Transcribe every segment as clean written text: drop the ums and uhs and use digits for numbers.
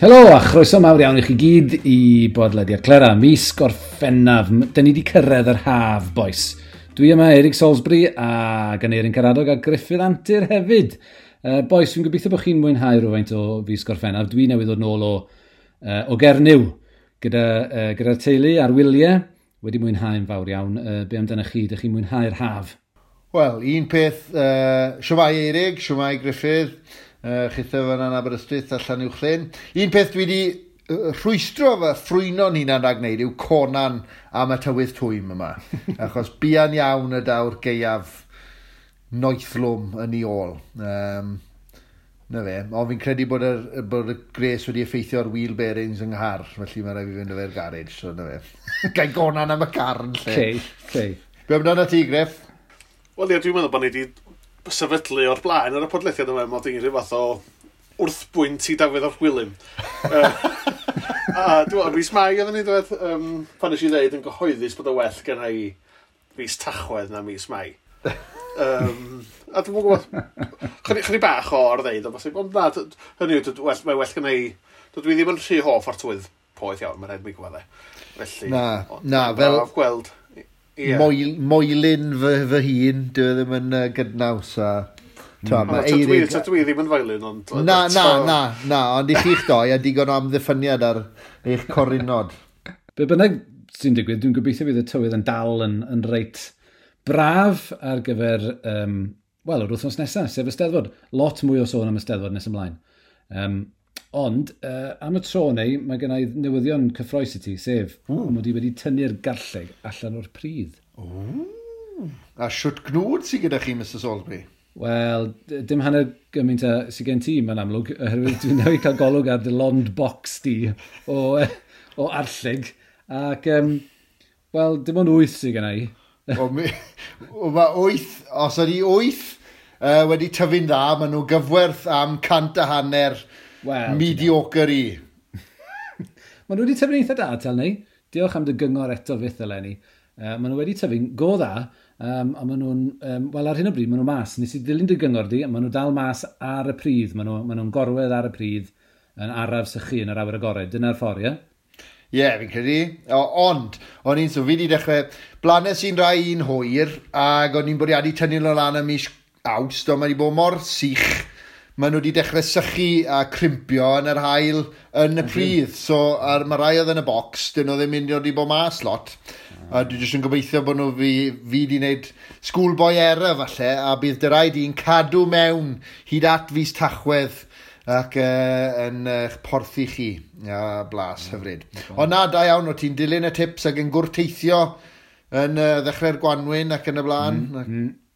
Helo a chroeso mawr iawn i chi gyd i bodlediad Clera, mis Gorffennaf. Dyn ni wedi cyrraedd yr haf, boys. Dwi yma, Eric Salisbury, a Aneirin Karadog a Gruffydd Antur hefyd. Boys, dwi'n gobeithio bod chi'n mwynhau rhywfaint o fis Gorffennaf. Dwi newydd ddod nôl o Gernyw gyda'r teulu a'r wyliau. Wedi mwynhau'n fawr iawn. Be amdanoch chi? Dych chi'n mwynhau'r haf? Wel, un peth, shwmae Eirig, shwmae Gruffydd, chitho fan yna Aberystwyth a Llanuwchllyn. Un peth dwi wedi rhwystro fy ffrwyno'n hunan rhag wneud yw conan am y tywydd twym yma. Achos buan iawn y daw'r gaeaf noethlwm yn ei ôl. Na fe, ond fi'n credu bod y gres wedi effeithio ar wheel bearings yng nghar, felly mae rhaid fi fynd â fe'r garage, so na fe. Gai gonan am y car yn lle. Okay. Be amdano ti, Griff? Wel ie, dwi'n meddwl bod ni wedi sefydlu o'r blaen ar y podlediad yma, mod i'n rhyw fath o wrthbwynt i Dafydd ap Gwilym. A dwi'n meddwl, mis Mai oedden ni dweud, pan nes i ddeud yn gyhoeddus bod y well gen i fis Tachwedd na mis Mai. A dwi'n gwybod, chydig bach o or-ddeud, ond bosib, ond na, hynny yw, mae well gen i, dwi ddim yn rhy hoff o'r tywydd poeth iawn, mae'n rhaid mi gwybod e. Felly, na, fel braf gweld. Yeah. Moelyn fy hun, dwi ddim yn gydnaws a... Dwi ddim yn foelyn, ond... Na, ond i chi'ch doi a digon o amddiffyniad ar eich corinod. Be bynnag sy'n digwydd, dwi'n gobeithio bydd y tywydd yn dal yn reit braf ar gyfer, wel, yr wythnos nesaf, sef y Steddfod. Lot mwy o sôn am y Steddfod nes ymlaen. Ond, am y tro neu, mae gen i newyddion cyffrous i ti, sef mod i wedi tynnu'r garlleg allan o'r pridd. A siwt gnwd sydd gyda chi, Mr Salisbury? Wel, dim hanner gymaint a sydd gen ti, mae'n amlwg, oherwydd dwi'n newydd cael golwg ar dy lond box di o arlleg. Ac, wel, dim ond 8 sydd gen i. Mae 8, os ydi 8 wedi tyfu'n dda, maen nhw gyfwerth am 150 well, mediocre i. Maen nhw wedi tyfu'n eitha da, tel ni. Diolch am dy gyngor eto fyth eleni. Maen nhw wedi tyfu'n go dda, a maen nhw'n, wel ar hyn o bryd, maen nhw mas. Nes i ddilyn dy gyngor di, a maen nhw dal mas ar y pridd. Maen nhw'n gorwedd ar y pridd yn araf sychu yn yr awyr agored. Dyna'r ffordd, ie? Ie, fi'n credu. Ond, o'n i'n, so fi wedi dechrau, blanes i'n rai un hwyr, ac o'n i'n bwriadu tynnu nhw lan ym mis Awst, ond mae wedi bod mor sych, maen nhw wedi dechrau sychu a crimpio yn yr haul yn y pridd. So, mae rai oedd yn y bocs, dyn nhw ddim mynd i bod mas lot. A dwi jyst yn gobeithio bod nhw fi wedi wneud schoolboy error falle, a bydd dy raid i'n cadw mewn hyd at fis Tachwedd ac yn eich porthi chi. A blas hyfryd. Ond na, da iawn, o ti'n dilyn y tips ac yn gwrteithio yn ddechrau'r gwanwyn ac yn y blaen.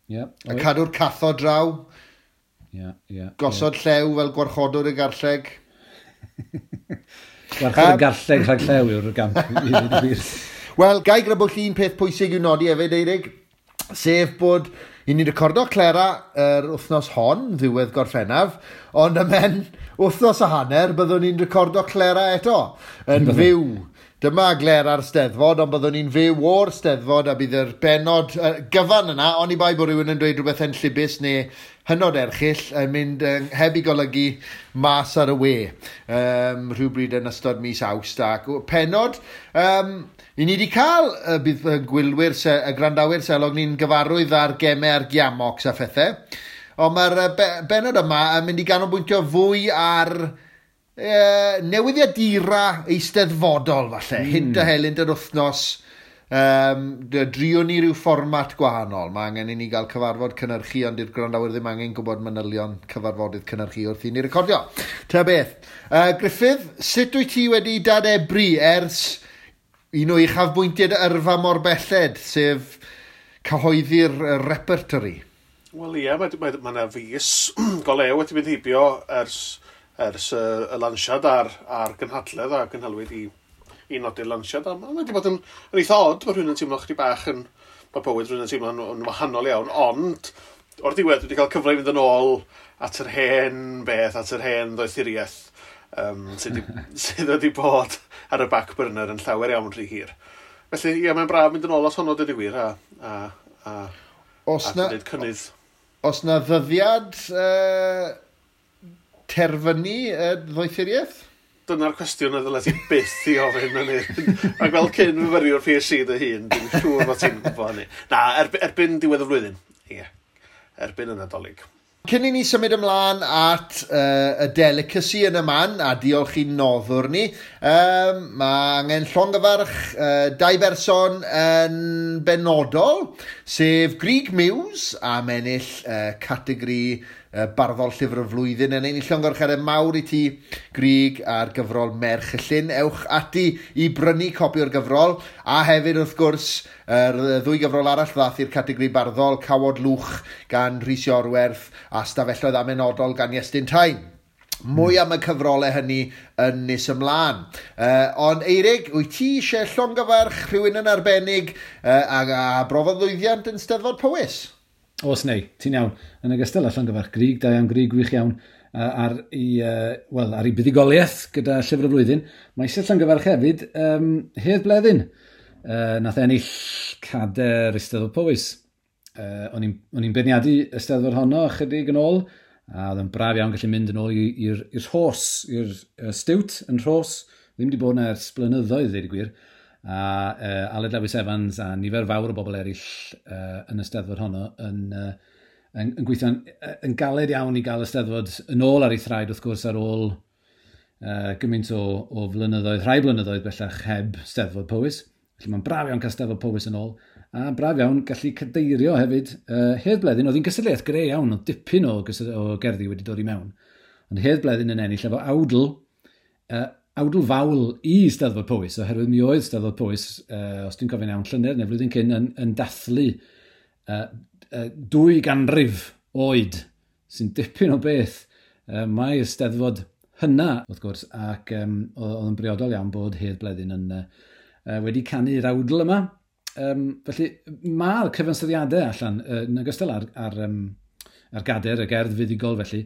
A cadw'r cathod draw. Yeah, gosod llew fel gwarchodwr y garlleg. Gwarchod y garlleg rhag llew yw'r gamp. Wel, gai grybwyll un peth pwysig i'w nodi hefyd, Eirig, sef bod i ni recordo Clera yr wythnos hon, ddiwedd Gorffennaf, ond ymhen wythnos a hanner byddwn ni'n recordo Clera eto, yn fyw. Dyma Glera'r Steddfod, ond byddwn ni'n fyw o'r Steddfod a bydd yr bennod gyfan yna, oni bai bod rhywun yn dweud rhywbeth enllibus neu hynod erchyll yn mynd heb i golygu mas ar y we rhywbryd yn ystod mis Awst. Ac pennod, i ni wedi cael bydd gwylwyr, y gwrandawyr selog ni'n gyfarwydd ar gemau ar giamocs a phethau, ond mae'r bennod yma yn mynd i ganolbwyntio fwy ar newyddiadura eisteddfodol falle, hint a helynt yr wythnos. Drio ni ryw fformat gwahanol. Mae angen i ni gael cyfarfod cynhyrchu, ond i'r gwrandawyr ddim angen gwybod manylion cyfarfodydd cynhyrchu wrth i ni recordio. Ta beth. Gruffydd, sut wyt ti wedi dadebru ers un o uchafbwyntiau dy yrfa mor belled, sef cyhoeddi'r repertory? Wel ie, mae yna fis go lew wedi mynd heibio ers y lansiad a'r gynhadledd a gynhalwyd i nodi'r lansiad. A mae wedi bod yn eitha od, mae rhywun yn teimlo chydig bach yn, mae bywyd rhywun yn teimlo'n yn wahanol iawn, ond o'r diwedd dwi wedi cael cyfle i fynd yn ôl at yr hen beth, at yr hen ddoethuriaeth sydd wedi bod ar y back burner yn llawer iawn rhy hir. Felly, ie, mae'n braf mynd yn ôl at honno, dweud y gwir, a gwneud cynnydd. Os na ddyddiad terfynu ddoethuriaeth? Dyna'r cwestiwn a ddylai ti byth i ofyn yn hyn. Ac fel cyn fyfyriwr PhD dy hun, dwi'n siŵr bod ti'n gwybod hynny. Na, erbyn diwedd y flwyddyn. Ie, erbyn y Nadolig. Cyn i ni symud ymlaen at y delicacy yn y man, a diolch i'n noddwr ni, mae angen llongyfarch dau berson yn benodol, sef Grug Muse am ennill categori barddol llyfr y flwyddyn. Yn ein llongyfarchiadau mawr i ti, Grug, ar gyfrol Merch y Llyn. Ewch ati i brynu copi o'r gyfrol, a hefyd wrth gwrs yr ddwy gyfrol arall ddath i'r categori barddol, Cawod Lwch gan Rhys Iorwerth a Stafelloedd Amenodol gan Iestyn Tyne. Mwy am y cyfrolau hynny yn nes ymlaen. Ond Eirig, wyt ti eisiau llongyfarch rhywun yn arbennig a brofodd lwyddiant yn Steddfod Powys? Oes neu, ti'n iawn. Yn ogystal â llongyfarch Grug, da iawn Grug, gwych iawn, ar ei buddugoliaeth gyda Llyfr y Flwyddyn. Mae eisiau llongyfarch hefyd Hedd Bleddyn. Nath ennill cader Eisteddfod Powys. O'n i'n beirniadu y Steddfod honno ychydig yn ôl, a oedd yn braf iawn gallu mynd yn ôl i'r Rhos, i'r Stiwt yn Rhos. Ddim wedi bod yna ers blynyddoedd, dweud y gwir. A Aled Lewis Evans a nifer fawr o bobl eraill yn y Steddfod honno yn gweithio'n yn galed iawn i gael y Steddfod yn ôl ar ei thraed, wrth gwrs, ar ôl gymaint o flynyddoedd, rhai blynyddoedd bellach heb Steddfod Powys. Felly mae'n braf iawn cael Steddfod Powys yn ôl, a braf iawn gallu cadeirio hefyd. Hedd Bleddyn, oedd hi'n gystadleuaeth greu iawn, oedd dipyn o gerddi wedi dod i mewn. Ond Hedd Bleddyn yn ennill efo awdl, awdl fawl i Steddfod Powys, oherwydd mi oedd Steddfod Powys, os dwi'n cofio'n iawn, llynedd neu flwyddyn cyn, yn dathlu 2 ganrif oed, sy'n dipyn o beth. Mae Steddfod hynna, wrth gwrs, ac oedd yn briodol iawn bod Hedd Bleddyn yn wedi canu'r awdl yma. Felly mae'r cyfansoddiadau allan, yn ogystal ar gader, y gerdd fuddugol felly,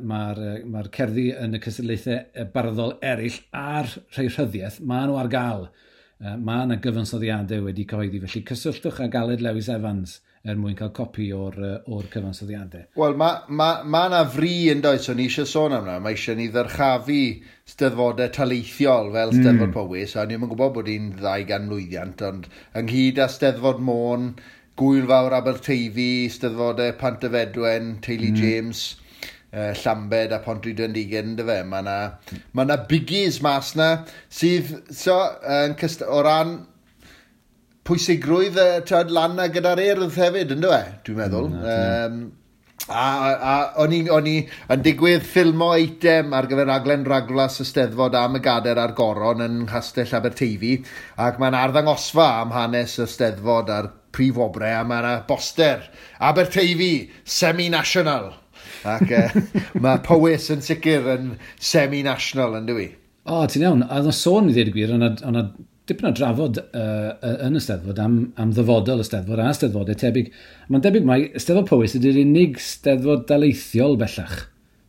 mae'r cerddi yn y cystadlaethau barddol eraill a'r rhai rhyddiaeth, maen nhw ar gael. Mae yna gyfansoddiadau wedi cyhoeddi, felly cysylltwch â Aled Lewis Evans er mwyn cael copi o'r cyfansoddiadau. Wel, mae yna fri yn does, o'n i eisiau sôn am hwnna. Mae eisiau ni ddyrchafu steddfodau taleithiol fel Steddfod Powys, a ni'n gwybod bod hi'n 200 mlwyddiant, ond ynghyd â Steddfod Môn, Gwyl Fawr Aberteifi, Steddfodau Pantyfedwen, Teulu James, Llambed a Pontrhydfendigaid, ynddo fe. Mae yna biggies mas na sydd so, o ran pwysigrwydd lan na gyda'r Urdd hefyd, ynddo fe, dwi'n meddwl. A o'n i yn digwydd ffilmo eitem ar gyfer raglen Ragflas y Steddfod am y Gader a'r Goron yn Nghastell Aberteifi, ac mae'n arddangosfa am hanes y Steddfod a'r prif wobre, a mae yna boster Aberteifi, semi-national. Ac mae Powys yn sicr yn semi-national, yn dwi? O, ti'n iawn. A oedd sôn i ddweud y gwir, o'na dipyn o drafod yn y Steddfod am ddyfodol y Steddfod a Steddfodau tebyg. Mae'n debyg mai Steddfod Powys ydy'r unig Steddfod daleithiol bellach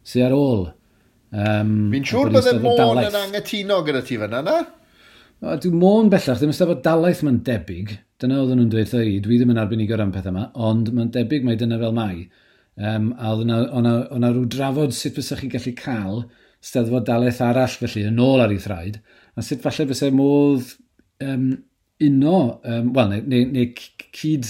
sydd ar ôl. Fi'n siŵr bydde Môn yn anghytuno gyda ti fan'na, na? Dwi Môn bellach, ddim yn Steddfod dalaith mae'n debyg. Dyna oedden nhw'n dweud i, dwi ddim yn arbenigwr am pethau yma, ond mae'n debyg mai dyna fel mai. A oedd yna rhyw drafod sut fysa chi'n gallu cael Steddfod dalaith arall felly yn ôl ar ei thraed, a sut falle fysa modd uno, wel, neu cyd,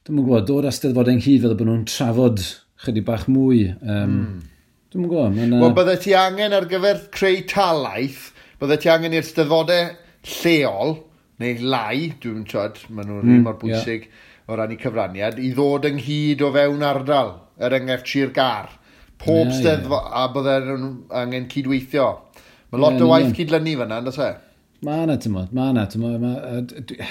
dwi'm yn gwybod, dod â Steddfodau ynghyd fel bod nhw'n trafod chydig bach mwy. Dwi'm yn gwybod. Wel, bydde ti angen ar gyfer creu talaith, bydde ti angen i'r Steddfodau lleol, neu lai, dwi'n siarad, maen nhw'n un mor bwysig o ran eu cyfraniad, i ddod ynghyd o fewn ardal, er enghraifft Sir Gâr. Pob Steddfod, a bydde nhw'n angen cydweithio. Mae lot o waith cydlynu fan'na, yndos e? Mae yna, ti'n mae yna, ti'n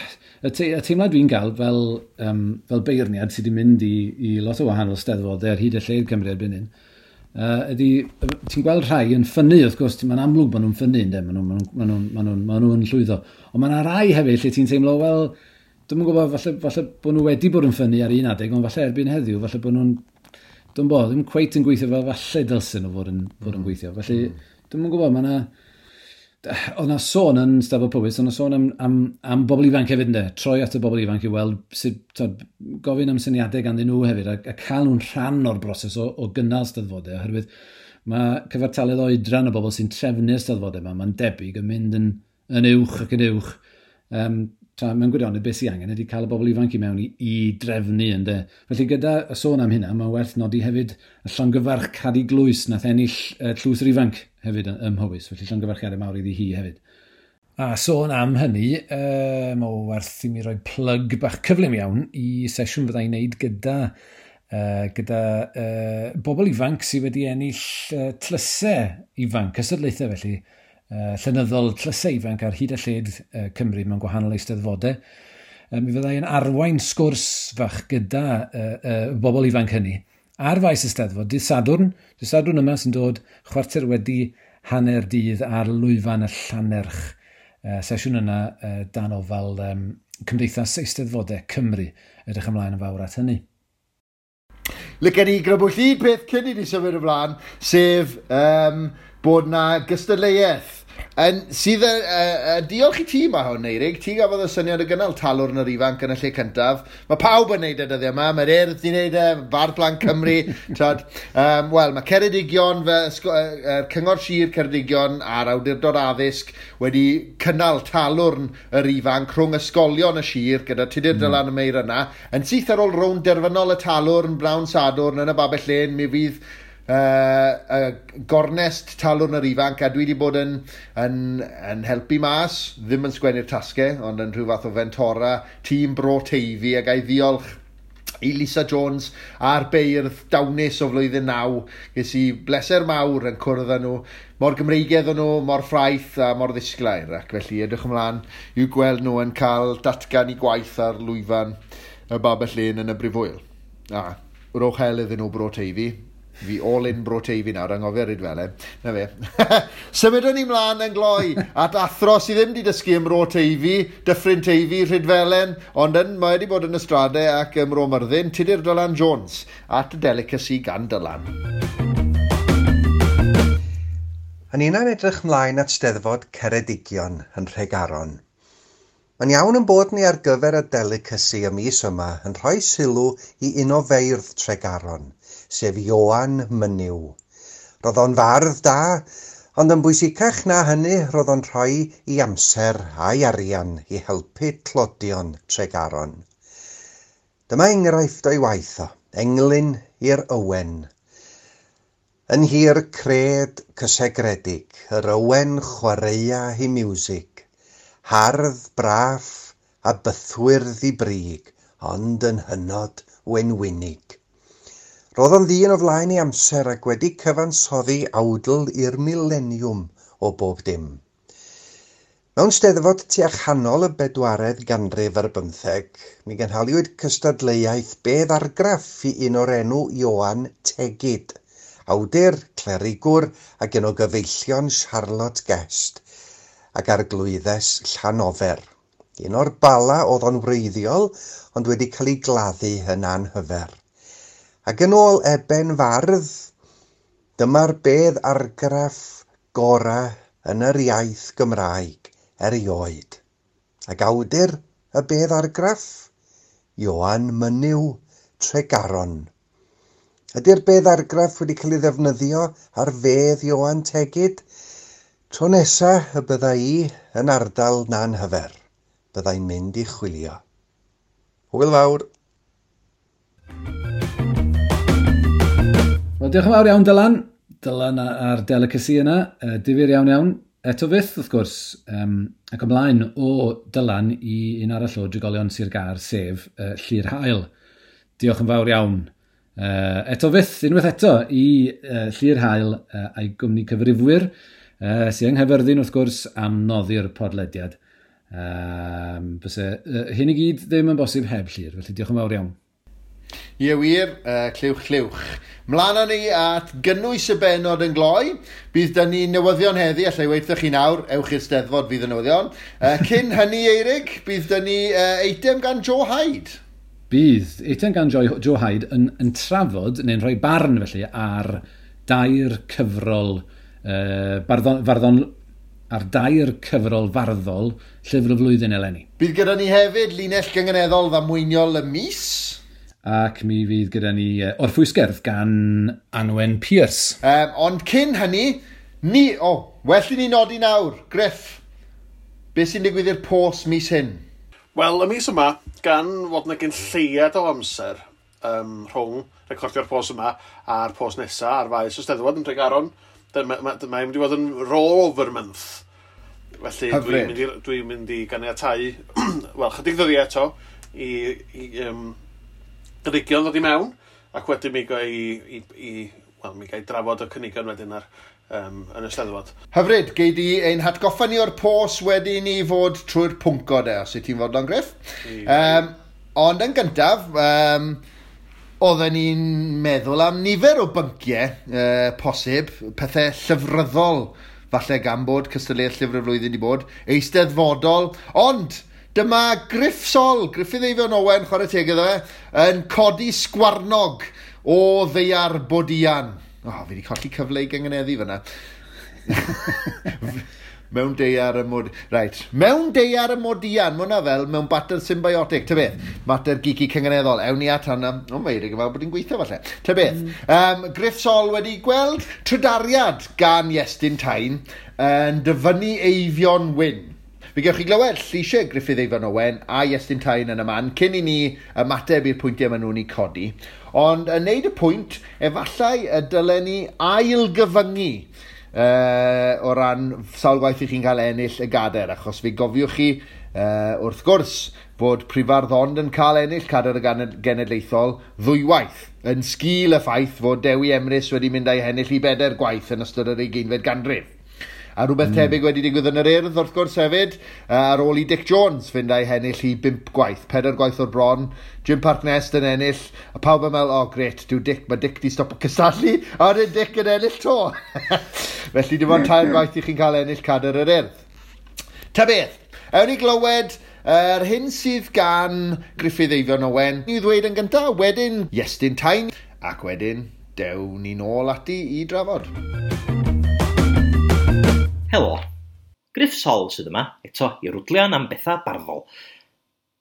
y teimlad dwi'n gael fel beirniad sydd wedi mynd i lot o wahanol steddfodau ar hyd y lled Cymru erbyn hyn, ydy, ti'n gweld rhai yn ffynnu, wrth gwrs, mae'n amlwg bod nhw'n ffynnu, ynddo, maen nhw'n llwyddo. Ond mae yna rai hefyd lle ti'n teimlo, wel, dwi'm yn gwybod, falle bod nhw wedi bod yn ffynnu ar un adeg, ond falle erbyn heddiw, falle bod nhw'n, dwi'm bod, ddim cweit yn gweithio fel falle dylsyn nhw fod yn gweithio. Felly, dwi'm yn gwybod, mae yna... Oedd yna sôn yn Steddfod Powys, oedd yna sôn am bobl ifanc hefyd, ynddo? Troi at y bobl ifanc i weld sut, gofyn am syniadau ganddyn nhw hefyd, a cael nhw'n rhan o'r broses o gynnal Steddfodau, oherwydd Mae cyfartaledd oedran y bobl sy'n trefnu'r steddfodau yma, mae'n debyg yn mynd yn uwch ac yn uwch. Tra mewn gwirionedd beth sy'n angen ydy cael y bobl ifanc i mewn i drefnu, ynde. Felly gyda y sôn am hynna, mae werth nodi hefyd y llongyfarch Cadi Glwys nath ennill Tlws yr Ifanc hefyd ym Mhowys. Felly llongyfarchiadau mawr iddi hi hefyd. A sôn am hynny, mae werth i mi roi plug bach cyflym iawn i sesiwn fydda i'n neud gyda bobl ifanc sydd wedi ennill tlysau ifanc, cystadlaethau felly, llenyddol tlysau ifanc ar hyd a lled Cymru mewn gwahanol eisteddfodau. Mi fyddai yn arwain sgwrs fach gyda bobl ifanc hynny ar faes Eisteddfod, dydd Sadwrn yma sy'n dod 9:15 dydd ar lwyfan y Llannerch. Sesiwn yna dan ofal Cymdeithas Eisteddfodau Cymru. Edrych ymlaen yn fawr at hynny. Licen i grybwyll un peth cyn i ni symud ymlaen, sef bod na gystadleuaeth. Sydd, diolch i ti mae hwn, Eirig, ti gafodd y syniad o gynnal Talwrn yr Ifanc yn y lle cyntaf. Mae pawb yn neud y dyddiau yma, mae'r Urdd di neud e, Bardd Plant Cymru. Wel, mae Ceredigion, Cyngor Sir Ceredigion a'r Awdurdod Addysg wedi cynnal Talwrn yr Ifanc rhwng ysgolion y sir gyda Tudur Dylan y Meir yna. Yn syth ar ôl rownd derfynol y Talwrn, Blawn Sadwrn yn y Babell Lên, mi fydd gornest Talwrn yr Ifanc, a dwi wedi bod yn helpu mas, ddim yn sgwennu'r tasgau, ond yn rhyw fath o fentora tîm Bro Teifi, a ga i ddiolch i Lisa Jones a'r beirdd dawnus o flwyddyn 9. Ges i bleser mawr yn cwrdd â nhw, mor Gymreigedd o'n nhw, mor ffraeth a mor ddisglair, ac felly edrych ymlaen i'w gweld nhw yn cael datgan i gwaith ar lwyfan y Babell Lên yn y Brifwyl. A rowch hel iddyn nhw Bro Teifi. Fi all in Bro Teifi nawr, anghofio Rhydfelen. Na fe. Symudwn ni mlaen yn gloi at athro sydd ddim wedi dysgu ym Mro Teifi, Dyffryn Teifi, Rhydfelen, ond mae wedi bod yn y Strade ac ym Mro Myrddin, Tudur Dylan Jones, at y Delicacy gan Dylan. Yn unan edrych mlaen at Steddfod Ceredigion yn Nhregaron. Mae'n iawn yn bod ni ar gyfer y delicacy y mis yma yn rhoi sylw i un o feirdd Tregaron, sef Ioan Mynyw. Roedd o'n fardd da, ond yn bwysicach na hynny roedd o'n rhoi i amser a'i arian i helpu tlodion Tregaron. Dyma enghraifft o'i waith o, englyn i'r Owen. Yn hir cred cysegredig, yr Owen chwaraea hi miwsig, hardd, braff a bythwyrdd i brig, ond yn hynod wenwynig. Roedd o'n ddyn o flaen ei amser ac wedi cyfansoddi awdl i'r mileniwm o bob dim. Mewn steddfod tua chanol y 15 ganrif, mi gynhaliwyd cystadleuaeth bedd argraff i un o'r enw Ioan Tegid, awdur, clerigwr ac un o gyfeillion Charlotte Guest ac arglwyddes Llanofer. Un o'r Bala oedd o'n wreiddiol, ond wedi cael ei gladdu yn anhyfer. Ac yn ôl Eben Fardd, dyma'r bedd argraff gora yn yr iaith Gymraeg erioed. Ac awdur y bedd argraff, Ioan Mynyw Tregaron. Ydy'r bedd argraff wedi cael ei ddefnyddio ar fedd Ioan Tegid? Tro nesa y bydda i yn ardal Nanhyfer, byddai'n mynd i chwilio. Hwyl fawr! Wel, diolch yn fawr iawn, Dylan. Dylan a'r delicacy yna. Difyr iawn iawn. Eto fyth, wrth gwrs, ac ymlaen o Dylan i un arall o drigolion Sir Gâr, sef Llyr Hael. Diolch yn fawr iawn. Eto fyth, unwaith eto, i Llyr Hael a'i gwmni cyfrifwyr, sydd yng Nghaerfyrddin, wrth gwrs, am noddi'r podlediad. Fyse hyn i gyd ddim yn bosib heb Llyr, felly diolch yn fawr iawn. Ie wir, clywch clywch. Mlaen â ni at gynnwys y bennod yn gloi. Bydd dyn ni newyddion heddi, allai weithio chi nawr, ewch i'r Steddfod fydd y newyddion. Cyn hynny, Eirig, bydd dyn ni eitem gan Joe Hyde. Bydd eitem gan Joe Hyde yn trafod, neu'n rhoi barn felly, ar dair cyfrol ar dair cyfrol farddol llyfr y flwyddyn eleni. Bydd gyda ni hefyd linell gynganeddol ddamweiniol y mis. Ac mi fydd gyda ni orffwysgerdd gan Anwen Pierce. Ond cyn hynny, well i ni nodi nawr, Griff, beth sy'n digwydd i'r pos mis hyn? Wel, y mis yma, gan fod yna gyn lleiad o amser rhwng recordio'r pos yma a'r pos nesaf ar faes y Steddfod yn Tregaron, mae'n mynd i fod yn roll-over month. Felly dwi'n mynd i ganiatáu, wel, chydig ddyddiau eto, i gynigion ddod i mewn, ac wedyn mi gai drafod y cynigion wedyn ar yn y Steddfod. Hyfryd, gei di ein hatgoffa ni o'r pos wedi ni fod trwy'r pwnco de, os wyt ti'n fodlon, Griff. Ond yn gyntaf, oedden ni'n meddwl am nifer o bynciau posib, pethau llyfryddol, falle gan bod cystadleuaeth llyfr y flwyddyn di bod, eisteddfodol, ond dyma Griff Sol, Gruffydd Eifion Owen, chwarae teg iddo fe, yn codi sgwarnog o ddaear Bodian. Fi wedi colli cyfle i gyngeneddu fyna. Mewn deiar y mod... Right. Mewn deiar y modian, mae hwnna fel mewn bater symbiotic, ta beth? Mater geeky cyngeneddol. Ewn ni at hwnna. O, mae Eirig yn fel bod hi'n gweithio falle. Ta beth? Griff Sol wedi gweld trydariad gan Iestyn Tyne yn dyfynnu Eifion Wyn. Fe gewch chi glywed lleisiau Gruffydd Eifion Owen a Iestyn Tyne yn y man cyn i ni ymateb i'r pwyntiau maen nhw'n eu codi. Ond yn neud y pwynt, efallai y dylen ni ailgyfyngu o ran sawl gwaith i chi'n cael ennill y gadair, achos fe gofiwch chi, wrth gwrs, fod Prifardd ond yn cael ennill cadair y genedlaethol ddwywaith, yn sgil y ffaith fod Dewi Emrys wedi mynd â'i hennill i 4 gwaith yn ystod yr 20fed ganrif. A rhywbeth tebyg wedi digwydd yn yr Urdd, wrth gwrs hefyd, ar ôl i Dic Jones fynd â'i hennill i 5 gwaith, 4 gwaith o'r bron, Jim Parc Nest yn ennill, a pawb yn meddwl, oh gret, mae Dic di stopo cystadlu, a wedyn Dic yn ennill to. Felly dim ond 3 gwaith i chi'n cael ennill cadair yr Urdd. Ta beth, ewn ni glywed yr hyn sydd gan Gruffydd Eifion Owen i ddweud yn gyntaf, wedyn Iestyn Tyne, ac wedyn dewn ni nôl ati i drafod. Helo, Griff Sol sydd yma, eto i rwdlian am bethau barddol.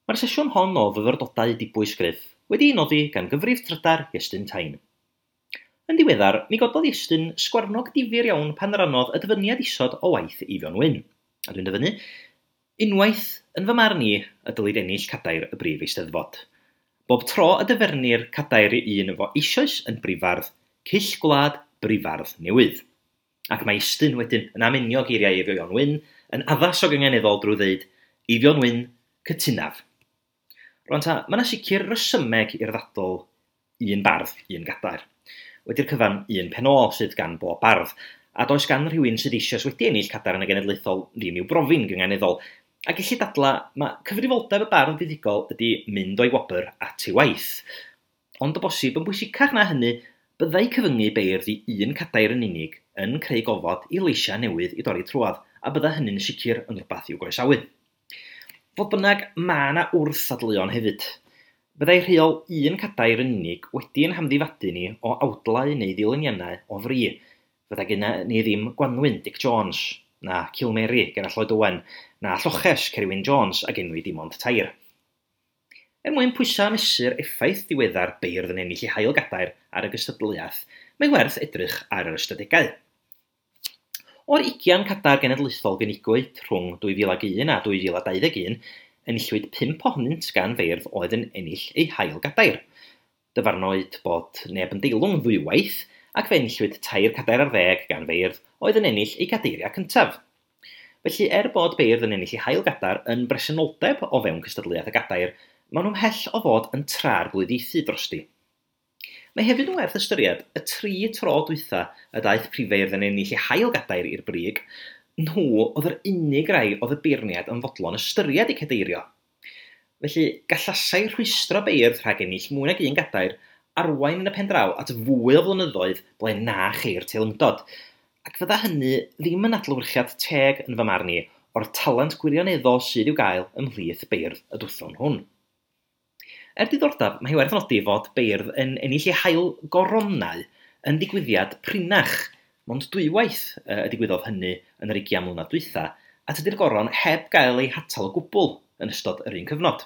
Mae'r sesiwn hon o fyfyrdodau dibwys Griff wedi'i noddi gan gyfrif trydar Iestyn Tyne. Yn ddiweddar, mi gododd Iestyn sgwarnog difyr iawn pan rannodd y dyfyniad isod o waith Eifion Wyn. A dwi'n dyfynnu, unwaith yn fy marn i y dylid ennill cadair y brif eisteddfod. Bob tro y dyfernir cadair i un fo eisoes yn brifardd, cyll gwlad brifardd newydd. Ac mae Iestyn wedyn yn amenio geiriau Eifion Wyn yn addas o gynganeddol drwy ddeud Eifion Wyn, cytunaf. Rwan ta, mae yna sicr resymeg i'r ddadl un bardd, un gadair. Wedi'r cyfan, un penôl sydd gan bob bardd, a does gan rhywun sydd eisoes wedi ennill cadair yn y genedlaethol ddim i'w brofi'n gynganeddol. A gellu dadla, mae cyfrifoldeb y bardd buddugol ydy mynd o'i wobr at ei waith. Ond o bosib yn bwysicach na hynny, byddai cyfyngu beirdd i un cadair yn unig yn creu gofod i leisiau newydd i dorri trwodd, a bydda hynny'n sicr yn rhywbeth i'w groesawu. Fodd bynnag, mae yna wrth-ddadleuon hefyd. Byddai rheol un cadair yn unig wedi'n hamddifadu ni o awdlau neu ddilyniannau o fri. Fydda genna ni ddim Gwanwyn Dic Jones, na Cilmeri Gerallt Lloyd Owen, na Lloches Cerwyn Jones ac enwi dim ond 3. Er mwyn pwyso a mesur effaith diweddar beirdd yn ennill ei hail gadair ar y gystadleuaeth, mae werth edrych ar yr ystadegau. O'r 20 cadair genedlaethol gynigwyd rhwng 2001 a 2021, enillwyd 5 ohonynt gan feirdd oedd yn ennill eu hail gadair. Dyfarnwyd bod neb yn deilwng ddwywaith, ac fe enillwyd 3 cadair ar 10 gan feirdd oedd yn ennill eu cadeiriau cyntaf. Felly, er bod beirdd yn ennill eu hail gadair yn bresenoldeb o fewn cystadleuaeth y gadair, maen nhw'n mhell o fod yn tra'r-glwyddiaethu drosti. Mae hefyd yn werth ystyried y 3 tro dwytha y daeth prifeirdd yn ennill eu hail gadair i'r brig, nhw oedd yr unig rai oedd y beirniad yn fodlon ystyried eu cadeirio. Felly, gallasai rhwystro beirdd rhag ennill mwy nag un gadair arwain yn y pen draw at fwy o flynyddoedd ble na cheir teilyngdod, ac fydda hynny ddim yn adlewyrchiad teg yn fy marn i o'r talent gwirioneddol sydd i'w gael ymhlith beirdd y dwthwn hwn. Er diddordeb, mae hi werth nodi fod beirdd yn ennill eu hail goronau yn ddigwyddiad prinach, mond dwywaith y digwyddodd hynny yn yr 20 mlynedd dwytha, a tydi'r goron heb gael ei hatal o gwbl yn ystod yr un cyfnod.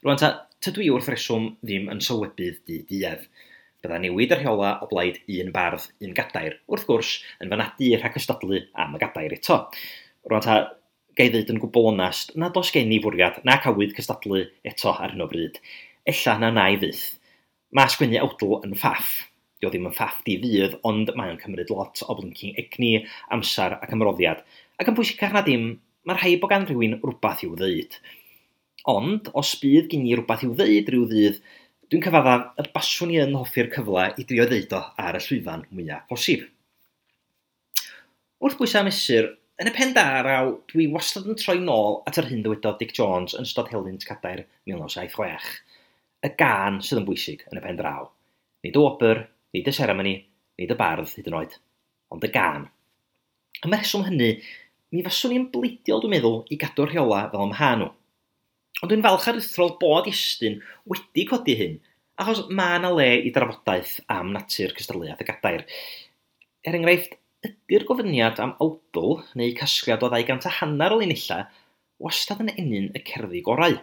Rwan ta, tydw i wrth reswm ddim yn sylwebydd di-duedd. Bydda newid y rheola o blaid un bardd, un gadair, wrth gwrs, yn fy nadu rhag cystadlu am y gadair eto. Rwan ta, ga i ddeud yn gwbl onast nad oes gen i fwriad nac awydd cystadlu eto ar hyn o bryd. Ella na wna i fyth. Mae sgwennu awdl yn ffaff. Dio ddim yn ffaff di fydd, ond mae o'n cymryd lot o blinking egni, amser ac ymroddiad. Ac yn bwysicach na dim, mae rhaid bod gan rhywun rhywbeth i'w ddeud. Ond, os bydd gen i rywbeth i'w ddeud rhyw ddydd, dwi'n cyfaddaf y baswn i yn hoffi'r cyfle i drio ddeud o ar y llwyfan mwyaf posib. Wrth bwysau a mesur, yn y pen draw, dwi wastad yn troi nôl at yr hyn ddywedodd Dic Jones yn ystod helynt Cadair 1976. Y gân sydd yn bwysig yn y pen draw. Nid y wobr, nid y seremoni, nid y bardd hyd yn oed, ond y gân. Am y rheswm hynny, mi faswn i'n bleidiol, dwi'n meddwl, i gadw'r rheola fel ym mha nhw. Ond dwi'n falch aruthrol bod Iestyn wedi codi hyn, achos mae yna le i drafodaeth am natur cystadleuaeth y gadair. Er enghraifft, ydy'r gofyniad am awdl neu casgliad o 250 o linellau wastad yn ennyn y cerddi gorau?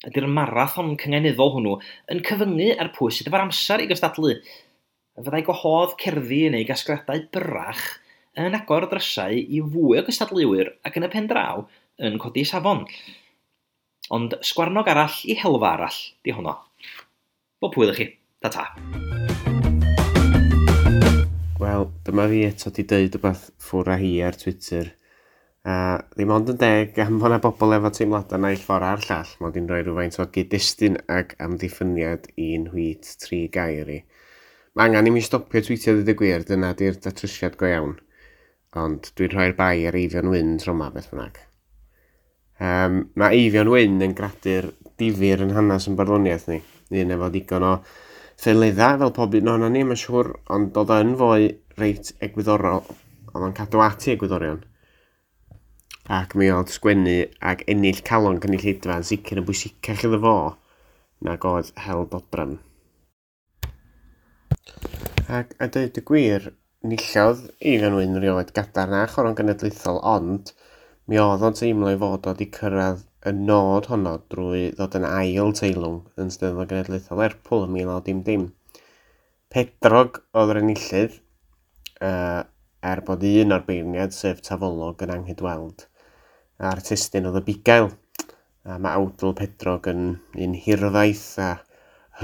Ydy'r marathon cynganeddol hwnnw yn cyfyngu ar pwy sydd efo'r amser i gystadlu? Fyddai gwahodd cerddi neu gasgliadau byrrach yn agor drysau i fwy o gystadleuwyr ac yn y pen draw yn codi safon? Ond sgwarnog arall i helfa arall, di honno. Bob hwyl i chi. Ta-ta. Wel, dyma fi eto di deud rhywbeth ffwr a hi ar Twitter. A ddim ond yn deg am fod 'na bobl efo teimladau naill ffordd a'r llall, mod i'n rhoi rhywfaint o gyd-destun ac amddiffyniad i'n nhweet tri gair i. Mae angen i mi stopio tweetio dweud y gwir, dyna di'r datrysiad go iawn. Ond dwi'n rhoi'r bai ar Eifion Wyn tro 'ma beth bynnag. Mae Eifion Wyn yn gradur difyr yn hanes yn barddoniaeth ni. Un efo digon o ffeledda fel pob un ohonon ni, mae'n siŵr, ond oedd yn foi reit egwyddorol, oedd o'n cadw at ei egwyddorion. Ac mi oedd sgwennu ac ennill calon cynulleidfa yn sicr yn bwysicach iddo fo nag oedd hel dodrefn. Ac a dweud y gwir, nillodd Eifion Wyn rioed gadair na choron genedlaethol, ond mi oedd o'n teimlo ei fod o wedi cyrraedd y nod honno drwy ddod yn ail teilwng yn Steddfod Genedlaethol Lerpwl yn 1910. Pedrog oedd yr enillydd, er bod un o'r beirniaid, sef Tafolog, yn anghydweld. A'r testun oedd y bugail. A mae awdl Pedrog yn un hirfaith a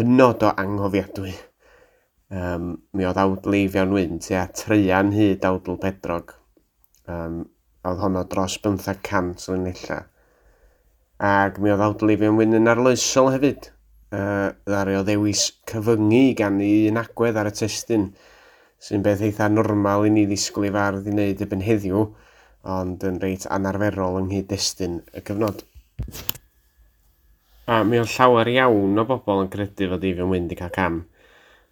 hynod o anghofiadwy. Mi oedd awdl Eifion Wyn tua traean hyd awdl Pedrog. Oedd honno dros 500 o linellau. Ac mi oedd awdl Eifion Wyn yn arloesol hefyd. Ddaru o ddewis cyfyngu gan un agwedd ar y testun, sy'n beth eitha normal i ni ddisgwyl i fardd i wneud erbyn heddiw, ond yn reit anarferol yng nghyd-destun y cyfnod. A mi oedd llawer iawn o bobl yn credu fod Eifion Wyn wedi cael cam.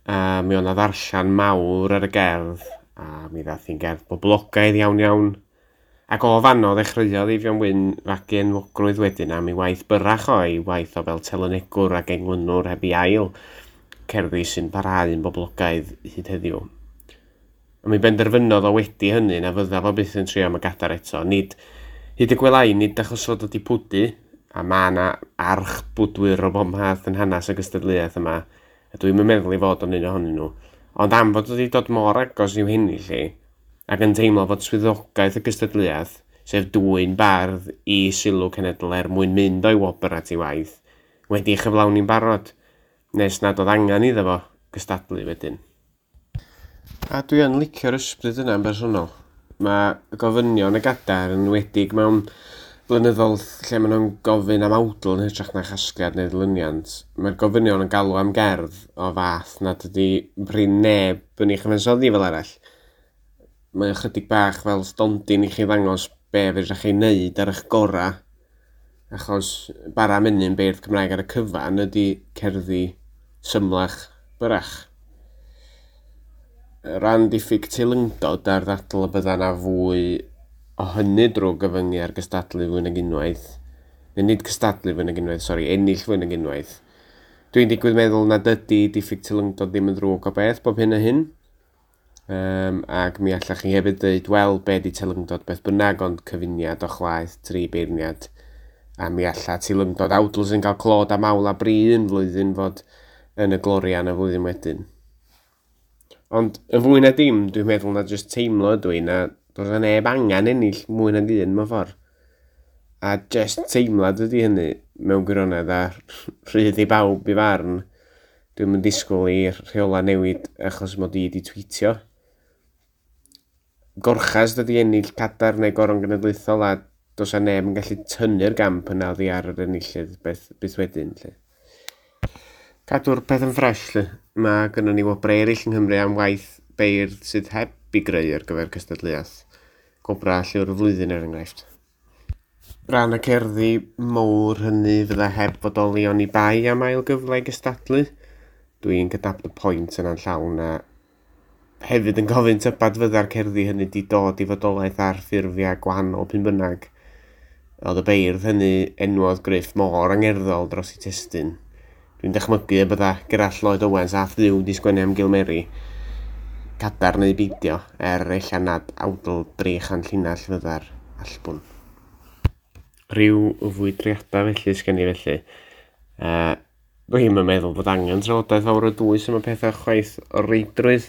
A mi oedd 'na ddarllen mawr ar y gerdd, a mi ddath hi'n gerdd boblogaidd iawn iawn. Ac o fanno ddechreuodd Eifion Wyn fagu enwogrwydd wedyn am ei waith byrrach o, ei waith o fel telynegwr ac englynwr heb ei ail, cerddi sy'n parhau yn boblogaidd hyd heddiw. A mi benderfynodd o wedi hynny na fydda fo byth yn trio am y gadair eto. Nid, hyd y gwelai, nid achos fod o 'di pwdu, a mae yna arch bwdwyr o bob math yn hanes y gystadleuaeth yma, a dwi'm yn meddwl ei fod o'n un ohonyn nhw, ond am fod o wedi dod mor agos i'w hennill hi, ac yn teimlo fod swyddogaeth y gystadleuaeth, sef dwyn bardd i sylw cenedl er mwyn mynd o'i wobr at ei waith, wedi ei chyflawni'n barod, nes nad oedd angen iddo fo gystadlu wedyn. A dwi yn licio'r ysbryd yna yn bersonol. Mae gofynion y gadair yn enwedig mewn blynyddoedd lle maen nhw'n gofyn am awdl yn hytrach na chasgliad neu ddilyniant. Mae'r gofynion yn galw am gerdd o fath nad ydy prin neb yn ei chyfansoddi fel arall. Mae ychydig bach fel stondin i chi ddangos be fedrwch chi wneud ar eich gorau, achos bara menyn beirdd Cymraeg ar y cyfan ydy cerddi symlach byrrach. Ran diffyg teilyngdod a'r ddadl y bydda 'na fwy o hynny drwy gyfyngu ar gystadlu fwy nag unwaith, neu nid cystadlu fwy nag unwaith, sori, ennill fwy nag unwaith. Dwi'n digwydd meddwl nad ydy diffyg teilyngdod ddim yn ddrwg o beth bob hyn a hyn. Ac mi allach chi hefyd dweud, wel, be di teilyngdod beth bynnag, ond cyfuniad o chwaeth tri beirniad A mi alla teilyngdod awdl sy'n cael clod am awl a bri un flwyddyn fod yn y gloria yn y flwyddyn wedyn. Ond y fwy na dim, dwi'n meddwl na jyst teimlo ydw i na does 'na neb angen ennill mwy nag un mewn ffordd. A jyst teimlad ydy hynny mewn gwirionedd a rhydd i bawb i farn. Dwi'm yn disgwyl i'r rheolau newid achos mod i wedi tweetio. Gorchas dydy ennill cadair neu goron genedlaethol a does 'na neb yn gallu tynnu'r gamp yna oddi ar yr enillydd beth, byth wedyn. Lle. Cadw'r peth yn ffres, lle. Mae gynnon ni wobrau eraill yng Nghymru am waith beirdd sydd heb i greu ar gyfer cystadleuaeth. Gwobrau Llyfr y Flwyddyn er enghraifft. Rhan y cerddi mowr hynny fydda heb fodoli oni bai am ail gyfle i gystadlu. Dwi'n cydnabod y pwynt yna'n llawn a hefyd yn gofyn tybed fydda'r cerddi hynny 'di dod i fodolaeth ar ffurfiau gwahanol p'un bynnag. Oedd y beirdd hynny enwodd Gruff mor angerddol dros eu testun. Dwi'n dychmygu y bydda Gerallt Lloyd Owens a Dduw 'di sgwennu am Gilmeri, cadarn neu beidio, er ella nad awdl 300 llinell fydda'r allbwn. Rhyw fwydriadau felly sgen i felly. Dwi'm yn meddwl bod angen trafodaeth fawr o dwys am y pethau chwaith o reidrwydd.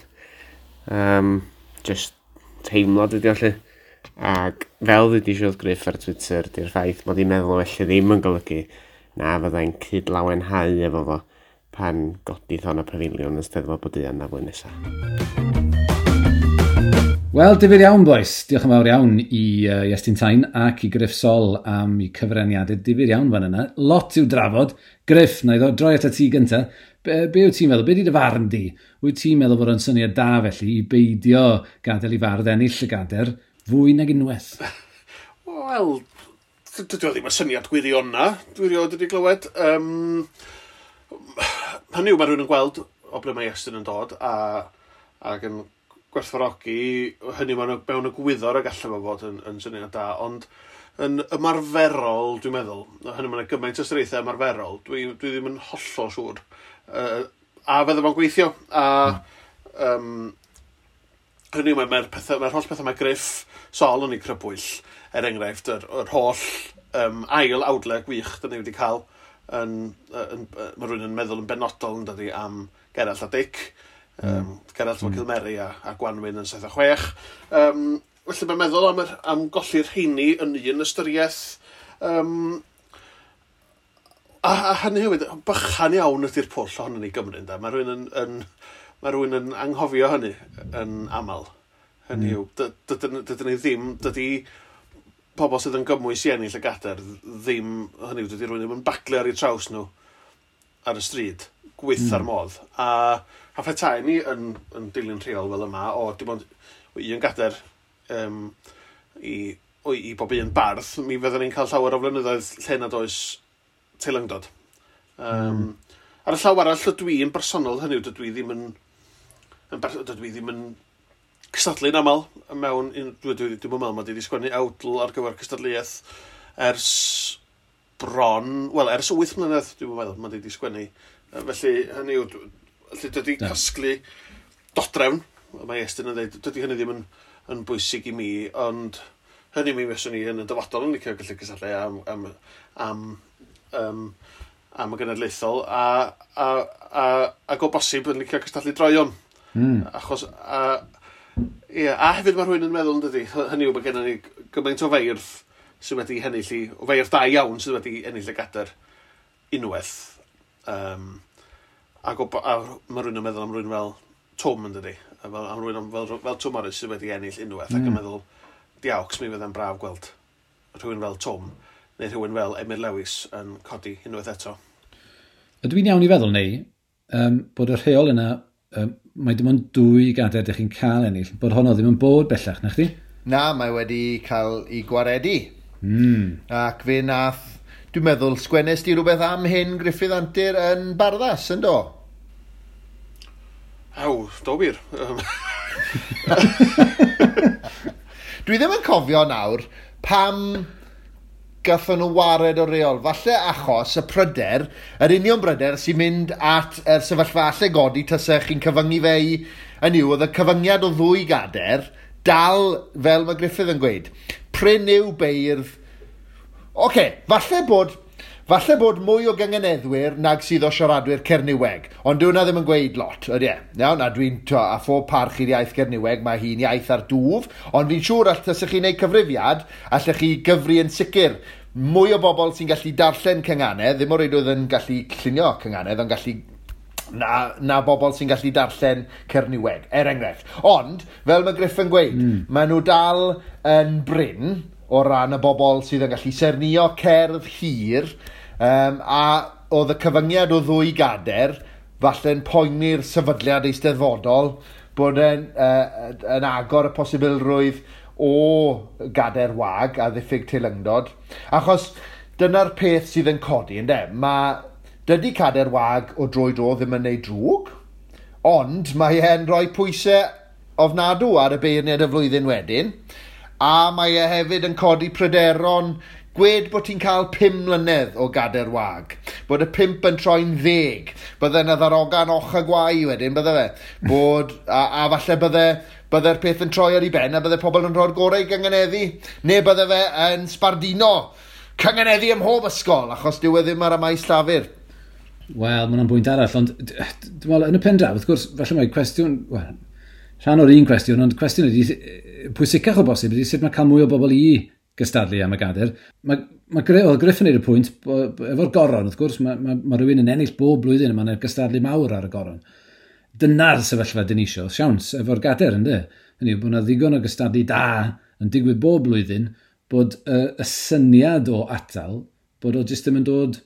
Just teimlad ydi o 'lly. Ac fel ddudis i wrth Gruff ar Twitter, di'r ffaith mod i'n meddwl felly ddim yn golygu na fyddai'n cyd-lawenhau efo fo pan godith o'n y pafiliwn yn Steddfod Boduan na flwyddyn nesaf. Wel, difyr iawn, boys. Diolch yn fawr iawn i Iestyn Tyne ac i Gruff Sol am eu cyfraniadau difyr iawn fan yna. Lot i'w drafod. Gruff, na i ddod droi atat ti gynta. Be wyt ti'n meddwl? Be di dy farn di? Wyt ti'n meddwl bod o'n syniad da felly i beidio gadael i fardd ennill y gader fwy nag unwaith? Wel, dydy o ddim yn syniad gwiriona, dwi rioed wedi glywed. Hynny yw, mae rhywun yn gweld o ble mae Iestyn yn dod a, ac yn gwerthfawrogi hynny mewn egwyddor y gallai fo fod yn syniad da, ond yn ymarferol, dwi'n meddwl, hynny mae'n gymaint o ystyriaethau ymarferol, dwi ddim yn hollol siŵr. A fydda fo'n gweithio, a hynny yw, mae'r mae holl pethau mae Gruff Sol yn ei crybwyll, er enghraifft, yr holl ail awdlau gwych dyn ni wedi cael, mae rhywun yn meddwl yn benodol yn dydi am Gerallt a Dic, Gerallt o Cilmeri a Gwanwyn yn 76. Felly mae'n meddwl am golli'r rheini yn un ystyriaeth. A hynny hefyd, bychan iawn ydy'r pwll ohono ni Gymru, ynde? Mae rhywun yn anghofio hynny yn aml. Hynny yw, dydyn ni ddim, dydy pobl sydd yn gymwys i ennill y gadair ddim, hynny yw, dydy rhywun ddim yn baglu ar eu traws nhw ar y stryd, gweitha'r modd. A phetai ni yn dilyn rheol fel yma, o dim ond un gadair i bob un bardd, mi fydden ni'n cael llawer o flynyddoedd lle nad oes teilyngdod. Ar y llaw arall, dydw i'n bersonol, hynny yw, dydw i ddim yn cystadlu'n aml mewn, dwi'n meddwl mod i wedi sgwennu awdl ar gyfer cystadleuaeth ers bron, wel, ers 8 mlynedd, dwi'n meddwl mod i wedi sgwennu. Felly, hynny yw, felly dydy casglu dodrefn, mae Iestyn yn dweud, dydy hynny ddim yn bwysig i mi, ond hynny mi fyswn i yn y dyfodol yn licio gallu cystadlu am y genedlaethol, ac o bosib yn licio cystadlu droeon. Achos, a hefyd mae rhywun yn meddwl, yn dydy, hynny yw, mae gennym ni gymaint o feirdd sydd wedi ennill o feirdd da iawn sydd wedi ennill y gadair unwaith. A mae rhywun yn meddwl am rhywun fel Twm, yn dydy, am rhywun fel Twm Morris sydd wedi ennill unwaith, ac yn meddwl, diawcs, mi fydda'n braf gweld rhywun fel Twm, neu rhywun fel Emyr Lewis yn codi unwaith eto. Ydw i'n iawn i feddwl, neu, bod y rheol yna, mae dim ond 2 gadair ydych chi'n cael ennill, bod honno ddim yn bod bellach, na chdi? Na, mae wedi cael ei gwaredu. Ac fe nath, dwi'n meddwl, sgwennes di rhywbeth am hyn Gruffydd Antur yn Barddas, yn do? Aw, do wir. Dwi ddim yn cofio nawr pam gathon nhw wared o reol. Falle achos y pryder, yr union bryder sy'n mynd at yr sefyllfa alle godi tasech chi'n cyfyngu fe i, yn yw, oedd y cyfyngiad o 2 gadair dal, fel mae Gruffydd yn gweud, prin yw beirdd Oce, falle bod mwy o gynganeddwyr nag sydd o siaradwyr Cernyweg, ond dyw hwnna ddim yn gweud lot, ydy e? Iawn, a dwi'n, a phob parch i'r iaith Cernyweg, mae hi'n iaith ar dwf, ond fi'n siŵr allech chi wneud cyfrifiad, allech chi gyfri yn sicr mwy o bobl sy'n gallu darllen cynganedd, ddim o reidrwydd yn gallu llunio cynganedd, ond gallu na bobl sy'n gallu darllen Cernyweg, er enghraifft. Ond, fel mae Griff yn gweud, maen nhw dal yn brin o ran y bobl sydd yn gallu sernio cerdd hir, a oedd y cyfyngiad o 2 gader falle'n poeni'r sefydliad eisteddfodol bod e'n yn agor y posibilrwydd o gader wag a ddiffyg teilyngdod. Achos dyna'r peth sydd yn codi, ynde? Dydy cader wag o dro i dro ddim yn neud drwg, ond mae e'n rhoi pwysau ofnadw ar y beirniad y flwyddyn wedyn, a mae e hefyd yn codi pryderon. Gwed bod ti'n cael 5 mlynedd o gader wag, bod y 5 yn troi'n 10, bydde yna ddarogan och a gwau wedyn, bydde fe, bod, a falle bydde'r peth yn troi ar ei ben a bydde pobl yn rhoi'r gorau i gynganeddu, neu bydde fe yn sbardino cynganeddu ym mhob ysgol, achos dyw e ddim ar y maes llafur. Wel, mae hwnna'n bwynt arall, ond dwi'n meddwl, yn y pen draw, wrth gwrs, falle mae cwestiwn, wel, rhan o'r un cwestiwn, ond cwestiwn ydy, pwysicach o bosib ydy sut mae cael mwy o bobl i gystadlu am y gader. Oedd Griff yn neud y pwynt, efo'r goron, wrth gwrs, mae rhywun yn ennill bob blwyddyn, a mae'n gystadlu mawr ar y goron. Dyna'r sefyllfa dyn ni isio, siawns, efo'r gader, ynddo? Hynny yw, bod yna ddigon o gystadlu da yn digwydd bob blwyddyn, bod y syniad o atal, bod o jyst ddim yn dod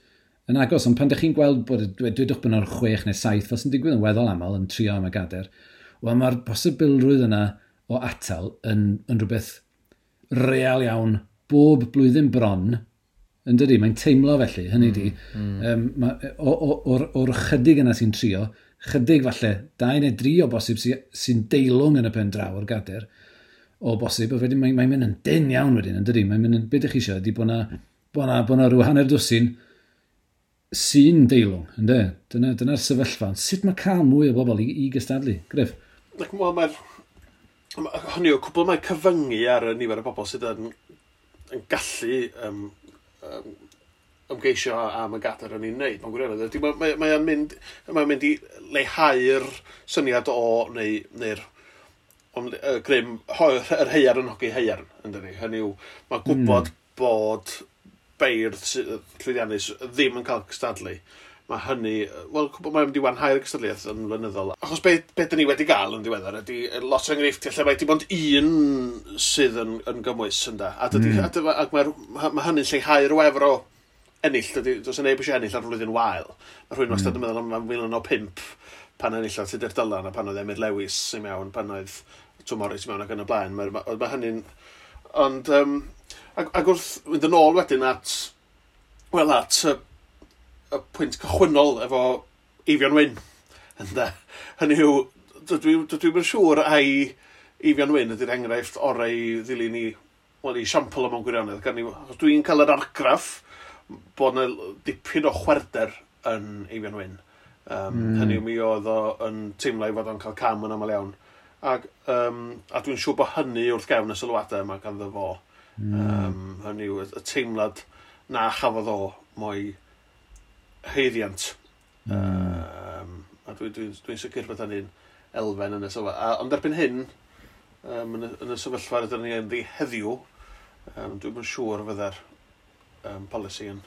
yn agos. Ond pan ydych chi'n gweld bod, dwedwch bod yna'r 6 neu 7, fel sy'n digwydd yn weddol aml yn trio am y gader, wel, mae'r posibilrwydd yna o atal yn rhywbeth real iawn bob blwyddyn bron, yn dydi? Mae'n teimlo felly, hynny di. O'r chydig yna sy'n trio, chydig falle, 2 neu 3 o bosib sy'n deilwng yn y pen draw o'r gader, o bosib, a wedyn mae'n mynd yn dyn iawn wedyn, yn dydi? Mae'n mynd yn, be ydych chi eisiau, ydy bod na rhyw hanner dwsin sy'n deilwng, ynddo? Dyna'r sefyllfa. Sut mae cael mwy o bobl i gystadlu? Griff? Wel, mae'r hynny yw, cwbl mae cyfyngu ar y nifer o bobl sydd yn gallu ymgeisio am y gader yn ei wneud. Mae'n gwirionedd. Mae'n mynd i leihau'r syniad o, neu'r grym, yr heiar yn hogi heiarn, yn dydi. Hynny yw, mae gwybod bod beirdd llwyddiannus ddim yn cael cystadlu. Mae hynny, wel, mae'n mynd i wanhau'r gystadleuaeth yn flynyddol. Achos be dyn ni wedi gael yn ddiweddar ydy lot o enghreifftiau lle mae dim ond un sydd yn gymwys, ynda. A ac mae hynny'n lleihau'r wefr o ennill. Does neb eisiau ennill ar flwyddyn wael. Mae rhywun wastad yn meddwl am 1905 pan enillodd Tudur Dylan a pan oedd Emyr Lewis i mewn, pan oedd Twm Morris i mewn ac yn y blaen. Mae hynny'n... Ond, ac wrth fynd yn ôl wedyn at, wel, at y pwynt cychwynnol efo Eifion Wyn. Ynde? Hynny yw, dwi yn siŵr ai Eifion Wyn ydy'r enghraifft orau i ddilyn i, wel, i siampl yma'n gwirionedd. Achos dwi'n cael yr argraff bod yna dipyn o chwerder yn Eifion Wyn. Hynny yw, mi oedd o yn teimlo i fod o'n cael cam yn aml iawn. A dwi'n siŵr bod hynny wrth gefn y sylwadau yma ganddo fo. Hynny yw, y teimlad na chafodd o mo'i haeddiant. A dwi'n sicr bod hynny'n elfen yn y sefyllfa. Ond erbyn hyn, yn y sefyllfa rydyn ni ynddi heddiw, dwi'm yn siŵr fydde'r polisi yn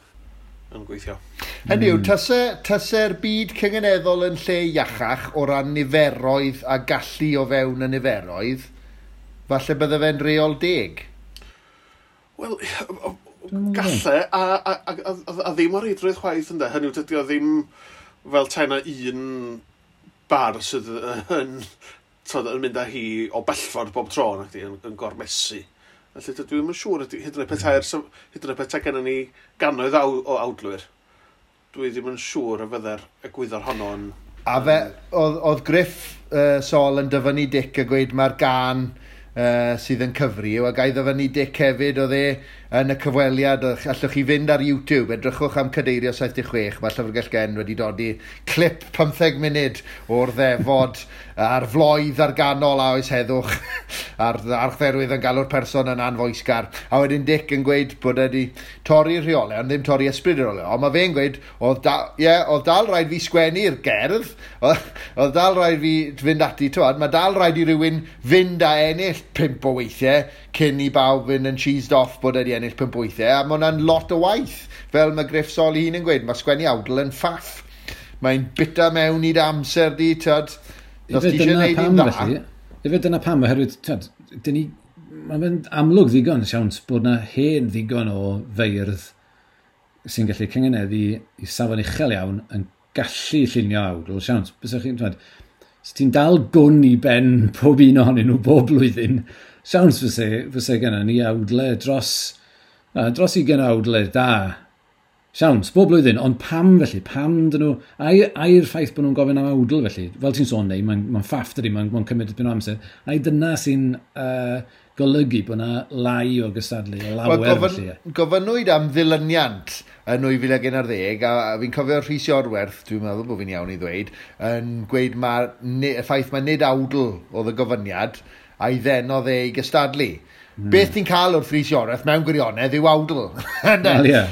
gweithio. Hynny yw, tase'r byd cynganeddol yn lle iachach o ran niferoedd a gallu o fewn y niferoedd, falle bydde fe'n reol deg? Wel, galle, a ddim o reidrwydd chwaith, ynde. Hynny yw, dydy o ddim fel tai na un bar sydd yn mynd â hi o bellffordd bob tro, nacdi, yn gormesu. Felly dydw i'm yn siŵr, hyd yn oed petai gennym ni gannoedd o awdlwyr, dwi ddim yn siŵr y fydde'r egwyddor honno yn... A fe, oedd Griff Sol yn dyfynnu Dic a gweud mae'r gan sydd yn cyfri, a gai ddyfynnu Dic hefyd, oedd e yn y cyfweliad, allwch chi fynd ar YouTube, edrychwch am Cadeirio 76, mae Llyfrgell Gen wedi dodi clip 15 munud o'r ddefod a'r floedd ar ganol a oes heddwch a'r archdderwydd yn galw'r person yn anfoesgar. A wedyn Dic yn gweud bod e wedi torri'r rheolau, ond ddim torri ysbryd y rheolau. Ond mae fe'n gweud, oedd, da, yeah, oedd dal rhaid fi sgwennu'r gerdd, oedd dal rhaid fi fynd ati, twad, mae dal rhaid i rywun fynd a ennill 5 o weithiau cyn i bawb fynd yn cheesed off bod e wedi ennill 5 o weithiau, a mae hwnna'n lot o waith. Fel mae Gruff Sol ei hun yn gweud, mae sgwennu awdl yn ffaff. Mae'n bita mewn i dy amser di, twad. Os ti eisiau gwneud un dda. Ife dyna pam, oherwydd, twad, mae'n mynd amlwg ddigon, siawns, bod na hen ddigon o feirdd sy'n gallu cyngeneddu i safon uchel iawn yn gallu llunio awdl, siawns. Bysach chi'n, twad, os ti'n dal gwn i ben pob un ohonyn nhw bob blwyddyn, siawns fyse genna ni awdle dros 20 awdle da. Siawns, bob blwyddyn, ond pam felly? Pam dyn nhw... Ai'r ffaith bod nhw'n gofyn am awdl felly? Fel ti'n sôn neu, mae'n ffaff dydi, mae'n cymryd dipyn o amser. Ai dyna sy'n golygu bod yna lai o gystadlu, o lawer felly? Gofynnwyd am ddilyniant yn 2011, a fi'n cofio Rhys Iorwerth, dwi'n meddwl bod fi'n iawn i ddweud, yn gweud y ffaith mae nid awdl oedd y gofyniad, a'i ddenodd e i gystadlu. Beth ti'n cael wrth Rhys Iorwerth mewn gwirionedd yw awdl. Wel, ie.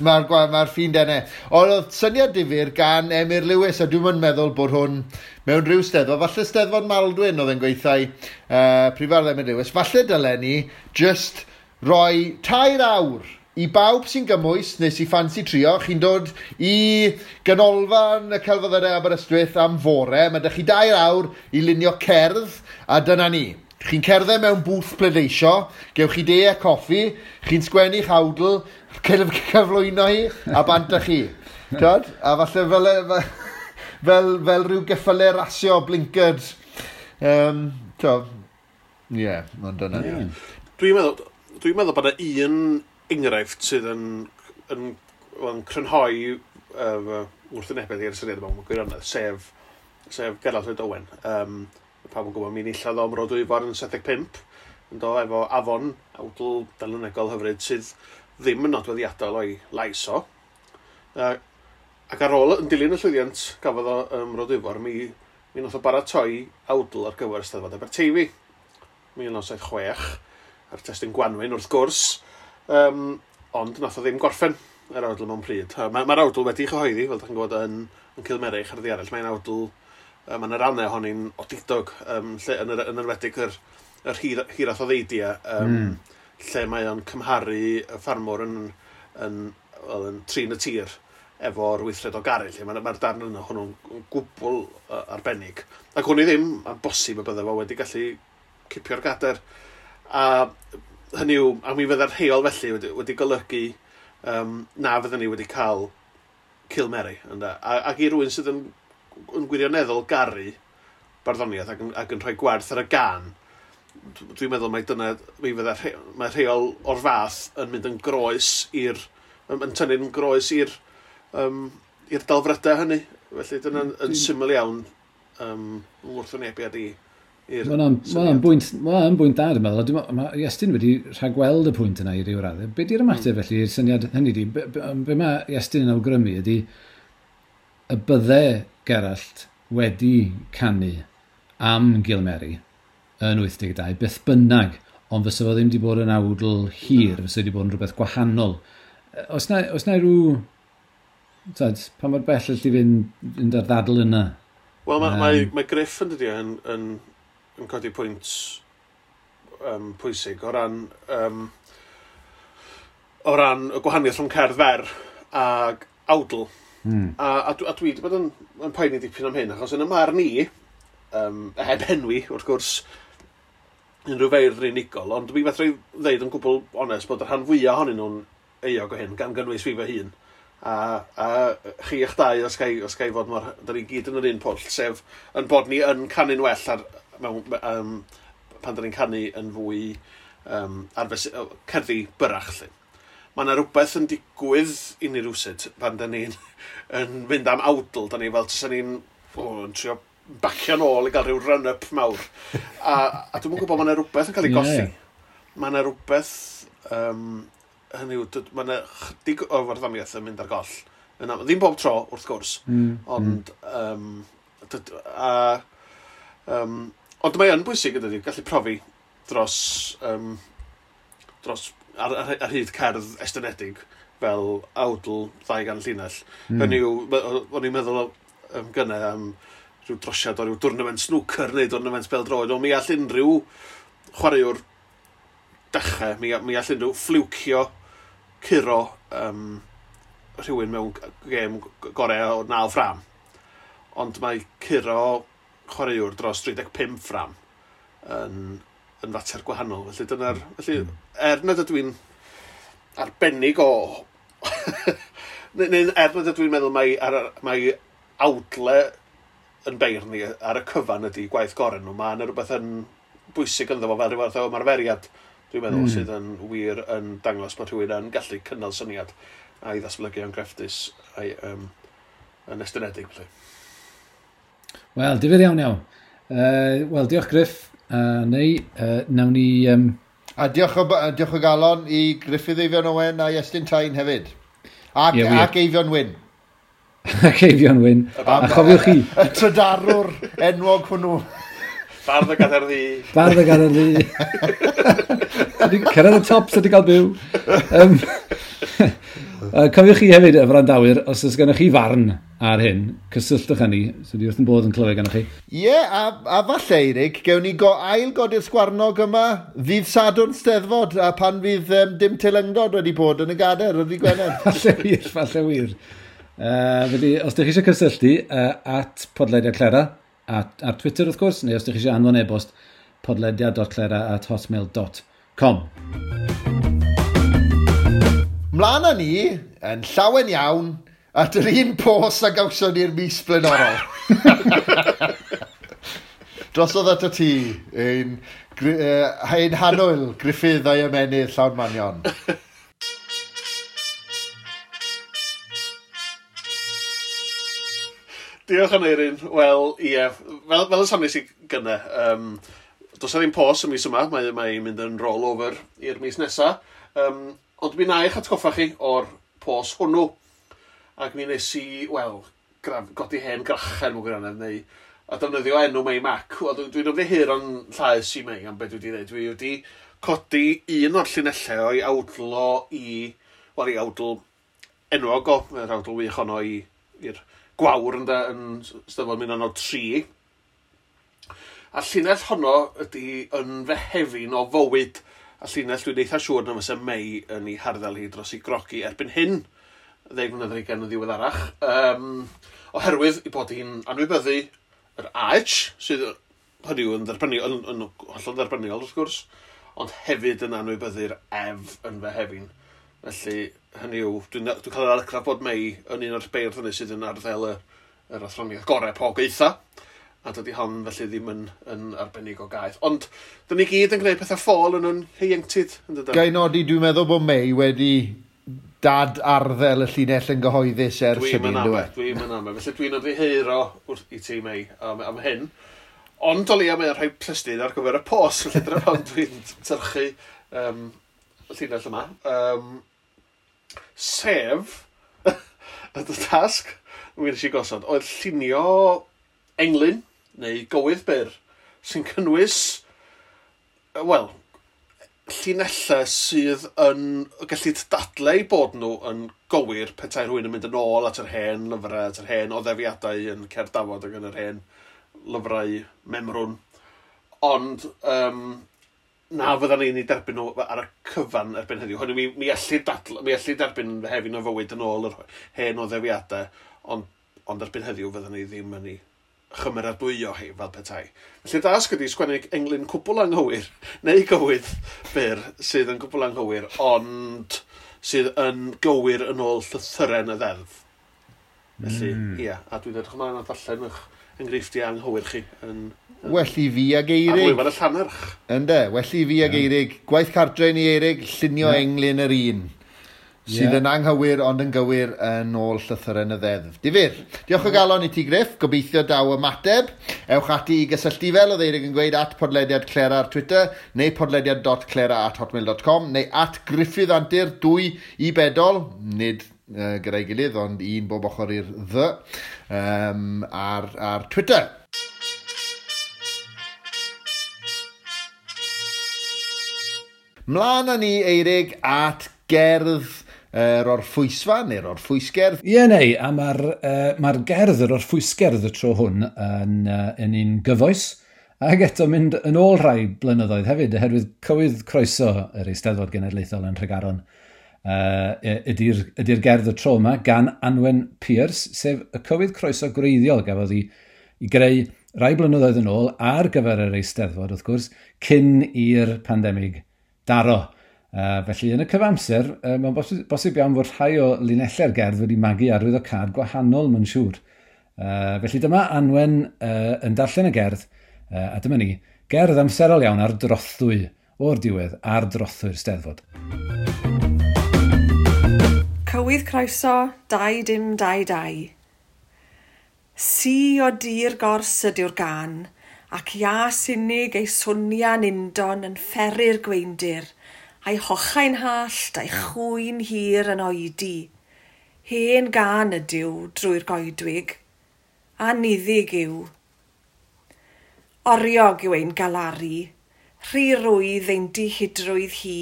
Mae'r ffin dene. Ond oedd syniad difyr gan Emyr Lewis, a dwi'n meddwl bod hwn mewn rhyw steddfod, falle steddfod Maldwyn oedd yn gweithio Prifardd Emyr Lewis, falle dylen ni just roi 3 awr i bawb sy'n gymwys neu sy'n ffansi trio, chi'n dod i ganolfan y Celfyddydau Aberystwyth am fore, mae 'da chi 2 awr i lunio cerdd, a dyna ni. Chi'n cerdded mewn bwth pleidleisio, gewch chi de a coffi, chi'n sgwennu'ch awdl, cyflwyno hi, a bant â chi. Tyd? A falle fel rhyw geffylau rasio, blinkered. Ie, ond dyna ni. Dwi'n meddwl bod yna un enghraifft sydd yn crynhoi wrthwynebedd i'r syniad yma mewn gwirionedd, sef Gerallt Lloyd Owen. Pawb yn gwybod, mi enillodd o Mro Dwyfor yn 75, yn do efo Afon, awdl delynegol hyfryd sydd ddim yn nodweddiadol o'i lais o. Ac ar ôl, yn dilyn y llwyddiant gafodd o Mro Dwyfor, mi nath o baratoi awdl ar gyfer Eisteddfod Aberteifi, 1976, a'r testun Gwanwyn wrth gwrs, ond nath o ddim gorffen yr awdl mewn pryd. Mae'r awdl wedi'i chyhoeddi, fel dach chi'n gwybod, yn Cilmerich ar ddi arall. Mae'n awdl, mae'n rannau ohoni'n odidog, lle, yn enwedig yr hiraeth o ddeidia, lle mae o'n cymharu y ffarmwr yn trin y tir efo'r weithred o garu. Lle mae'r darn yna hwnnw'n gwbl arbennig. Ac hwn i ddim, mae'n bosib y bydde fo wedi gallu cipio'r gader. A hynny yw, a mi fydde'r rheol felly wedi golygu na fydden ni wedi cael Cilmeri. Ac i rywun sydd yn gwirioneddol garu barddoniaeth ac yn rhoi gwerth ar y gan, dwi'n meddwl mai dyna, mi fydde mae rheol o'r fath yn mynd yn groes i'r, yn tynnu'n groes i'r delfrydau hynny. Felly dyna'n yn syml iawn wrthwynebiad i'r Mae'n bwynt da, dwi'n meddwl. Mae Iestyn wedi rhagweld y pwynt yna i ryw raddau. Be di'r ymateb felly i'r syniad hynny di? Be mae Iestyn yn awgrymu ydy y bydde Gerallt wedi canu am Gilmeri yn 82, beth bynnag, ond fysa fo ddim wedi bod yn awdl hir, fysa wedi bod yn rhywbeth gwahanol. Oes na rhyw... Tyd, pa mor bell allu fynd ar ddadl yna? Wel, mae Gruff yn dydi yn codi pwynt pwysig o ran y gwahaniaeth rhwng cerdd fer ag awdl. A dwi wedi bod yn poeni dipyn am hyn, achos yn y marn i, heb enwi, wrth gwrs, unrhyw feirdd unigol, ond dwi fedra i ddeud yn gwbl onest bod y rhan fwyaf ohonyn nhw'n euog o hyn, gan gynnwys fi fy hun. A chi eich dau, os ga i fod mor, da ni gyd yn yr un pwll, sef yn bod ni yn canu'n well ar, mewn, pan da ni'n canu yn fwy ar cerddi byrach, lle. Mae yna rhywbeth yn digwydd i ni rywsut pan da ni'n yn mynd am awdl, da ni fel tysa ni'n yn trio bacio nôl i gael rhyw run-up mawr. A dwi'm yn gwybod, mae yna rhywbeth yn cael ei golli. Mae yna rhywbeth Hynny yw, mae yna chydig o farddoniaeth yn mynd ar goll. Yna, ddim bob tro, wrth gwrs, ond, ond mae yn bwysig ydy, gallu profi dros, dros ar hyd cerdd estynedig fel awdl 200 llinell. Hynny yw, o'n i'n meddwl gynne am rhyw drosiad o ryw dwrnament snooker neu dwrnament bêl-droed, ond mi all unrhyw chwaraewr dechrau, mi all unrhyw ffliwcio curo rhywun mewn gêm gorau o 9 ffram. Ond mae curo chwaraewr dros 35 ffram yn fater gwahanol. Felly dyna'r... Felly, er nad ydw i'n arbennig o... neu er nad ydw i'n meddwl mai awdle yn beirdd ni ar y cyfan ydy gwaith gorau nhw, mae yna rhywbeth yn bwysig ynddo fo fel rhyw fath o ymarferiad, dwi'n meddwl, sydd yn wir yn dangos bod rhywun yn gallu cynnal syniad a'i ddatblygu yn grefftus a'i yn estynedig. Felly. Wel, difyr iawn iawn. Wel, diolch Griff. Neu, nawn ni... A diolch o galon i Gruffydd Eifion Owen a Iestyn Tyne hefyd. Ac, yeah, ac Eifion Wyn. Ac Eifion Wyn. A chofiwch chi... Y trydarwr enwog hwnnw. Bardd y Gadair Ddu. Bardd y Gadair Ddu. Cyrraedd y top sydd wedi cael byw. Cofiwch chi hefyd, y wrandawyr, os oes gennych chi farn ar hyn, cysylltwch â ni, so di wrth yn bodd yn clywed gennych chi. Ie, yeah, a falle, Eirig, gewn ni ail godi'r sgwarnog yma ddydd Sadwrn Steddfod, a pan fydd dim teilyngdod wedi bod yn y gadair ar ddydd Gwener. Falle wir, falle wir. Felly, os ydych chi eisiau cysylltu, at podlediad Clera, ar Twitter wrth gwrs, neu os ydych chi eisiau anfon e-bost, podlediad.clera@hotmail.com. Mlaen â ni, yn llawen iawn, at yr un pos a gawson ni'r mis blaenorol. Drosodd ato ti, ein hanwyl Gruffydd a'i ymennydd llawn manion. Diolch Aneirin. Wel, ie, fel y soniais i gynne, does 'na ddim pos y mis yma, mae'n mynd yn roll over i'r mis nesa. Ond mi wna i'ch atgoffa chi o'r pos hwnnw. Ac mi nes i, wel, godi hen grachen mewn gwirionedd, neu a defnyddio enw Mei Mac. Wel, dwi'n ymddiheuro'n llaes i Mei am beth dwi wedi dweud. Dwi wedi codi un o'r llinellau o'i awdl o i, wel, i awdl enwog o, yr awdl wych honno i'r Gwawr ynde, yn Steddfod 1903. A llinell honno ydy yn fehefin o fywyd. A llinell dwi'n eitha siŵr na fysa Mei yn ei harddel hi dros ei grogi erbyn hyn, 10 mlynedd ar hugain yn ddiweddarach. Oherwydd ei bod hi'n anwybyddu yr AH, sydd hynny yw yn dderbyniol, yn hollol dderbyniol wrth gwrs, ond hefyd yn anwybyddu'r ef yn fehefin. Felly, hynny yw, dwi'n cael yr argraff bod Mei yn un o'r beirdd hynny sydd yn arddel yr athroniaeth gorau po geitha, a dydy hon felly ddim yn arbennig o gaeth. Ond, dyn ni gyd yn gwneud pethau ffôl yn yn ieuenctid, yn dydyn? Ga i nodi, dwi'n meddwl bod Mei wedi dad arddel y llinell yn gyhoeddus ers hynny, ynddo e? Dwi'n mynd am e. Felly dwi'n ymddiheuro wrth i ti, Mei, am hyn. Ond o leia mae'n rhoi plystydd ar gyfer y pos, felly dyna pam dwi'n tyrchu y llinell yma. Sef, y tasg mi wnes i gosod, oedd llunio englyn, neu gywydd byr, sy'n cynnwys, wel, llinellau sydd yn gallu dadlau bod nhw yn gywir petai rhywun yn mynd yn ôl at yr hen lyfrau, at yr hen oddefiadau yn Cerdd Dafod ac yn yr hen lyfrau memrwn. Ond na fyddan ni'n ei derbyn nhw ar y cyfan erbyn heddiw. Hynny, mi allu derbyn fehefin o fywyd yn ôl yr hen oddefiadau, ond erbyn heddiw fyddan ni ddim yn ei chymeradwyo hi fel petai. Felly dasg ydy sgwennu englyn cwbl anghywir, neu gywydd byr sydd yn cwbl anghywir, ond sydd yn gywir yn ôl llythyren y ddeddf. Felly, ia, a dwi'n edrych ymlaen at ddarllen eich enghreifftiau anghywir chi. Well i fi ag Eirig. Ar lwyfan y llannerch. Ynde, well i fi ag Eirig. Gwaith cartre ni Eirig, llunio englyn yr un. Sydd yn anghywir ond yn gywir yn ôl llythyren y ddeddf. Difyr. Diolch o galon i ti, Griff. Gobeithio daw ymateb. Ewch ati i gysylltu fel oedd Eirig yn gweud at podlediad Clera ar Twitter neu podlediad.clera@hotmail.com neu at Gruffydd Antur 2 i bedol, nid gyda'i gilydd, ond un bob ochr i'r ddy, ar Twitter. Mlaen â ni, Eirig, at gerdd yr orffwysfa neu'r orffwysgerdd. Ie, neu, a mae'r gerdd, yr orffwysgerdd y tro hwn yn un gyfoes, ac eto mynd yn ôl rhai blynyddoedd hefyd, oherwydd cywydd croeso yr Eisteddfod Genedlaethol yn Nhregaron ydy'r gerdd y tro yma gan Anwen Pierce, sef y cywydd croeso gwreiddiol gafodd ei greu rai blynyddoedd yn ôl ar gyfer yr Eisteddfod, wrth gwrs, cyn i'r pandemig daro. Felly yn y cyfamser, mae'n bosib iawn fod rhai o linellau'r gerdd wedi magu arwyddocâd gwahanol, mae'n siŵr. Felly dyma Anwen yn darllen y gerdd, a dyma ni, gerdd amserol iawn ar drothwy, o'r diwedd, ar drothwy'r Steddfod. Cywydd croeso, 2022. Si o dir gors ydyw'r gan, ac ias unig ei swnian undon yn fferu'r gweindir, a'i hochau'n hallt a'i chwyn hir yn oedi. Hen gan ydyw drwy'r goedwig, a niddig yw. Oriog yw ein galaru, rhy rwydd ein dihidrwydd hi.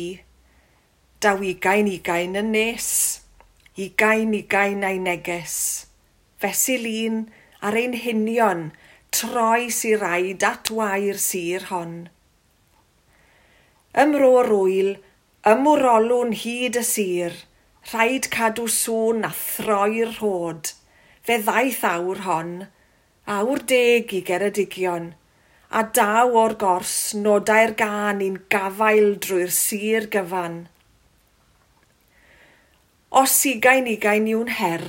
Daw 20 yn nes, 20 a'i neges. Fesul un ar ein hunion, troi sy raid at wair sir hon. Ymro'r wyl, ymwrolwn hyd y sir, rhaid cadw sŵn a throi'r rhod. Fe ddaeth awr hon, awr deg i Geredigion, a daw o'r gors nodau'r gân i'n gafael drwy'r sir gyfan. Os 20 yw'n her,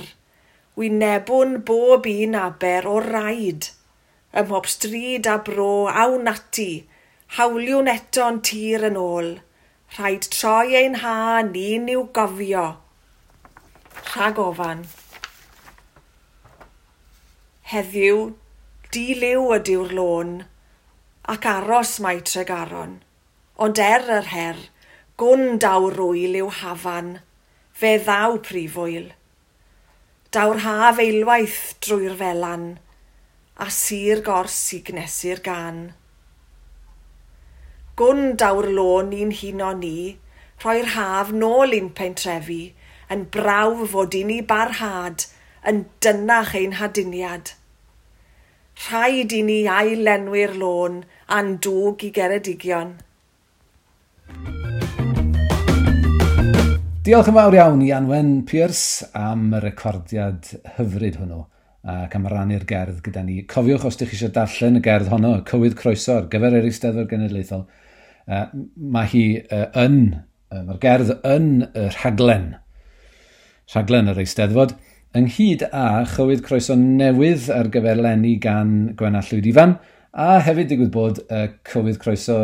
wynebwn bob un aber o raid, ym mhob stryd a bro awn ati, hawliwn eto'n tir yn ôl, rhaid troi ein ha ni'n i'w gofio. Rhag ofan. Heddiw, di-liw ydyw'r lôn, ac aros mae Tregaron, ond er yr her, gwn daw'r rwyl i'w hafan, fe ddaw prifwyl. Daw'r haf eilwaith drwy'r felan, a sir gors i gnesu'r gan. Gwn daw'r lôn i'n huno ni, rhoi'r haf nôl i'n pentrefi, yn brawf fod i ni barhad, yn dynach ein haduniad. Rhaid i ni ailenwi'r lôn a'n dwg i Geredigion. Diolch yn fawr iawn i Anwen Pierce am y recordiad hyfryd hwnnw ac am rannu'r gerdd gyda ni. Cofiwch os ydych chi eisiau darllen y gerdd honno, y cywydd croeso ar gyfer yr Eisteddfod Genedlaethol, mae hi mae'r gerdd yn y rhaglen yr Eisteddfod, ynghyd â chywydd croeso newydd ar gyfer leni gan Gwenna Llwyd Ifan, a hefyd digwydd bod y cywydd croeso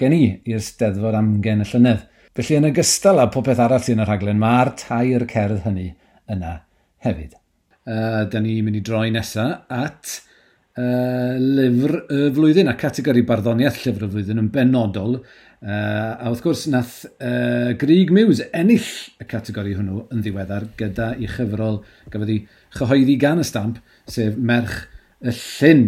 gen i i'r Steddfod Amgen y llynedd. Felly yn ogystal â popeth arall sy'n y rhaglen, mae'r tair cerdd hynny yna hefyd. Da ni'n mynd i droi nesaf at lyfr y flwyddyn a categori barddoniaeth llyfr y flwyddyn yn benodol. A wrth gwrs nath Grug Muse ennill y categori hwnnw yn ddiweddar gyda i chyfrol gafodd ei chyhoeddi gan y Stamp, sef Merch y Llyn.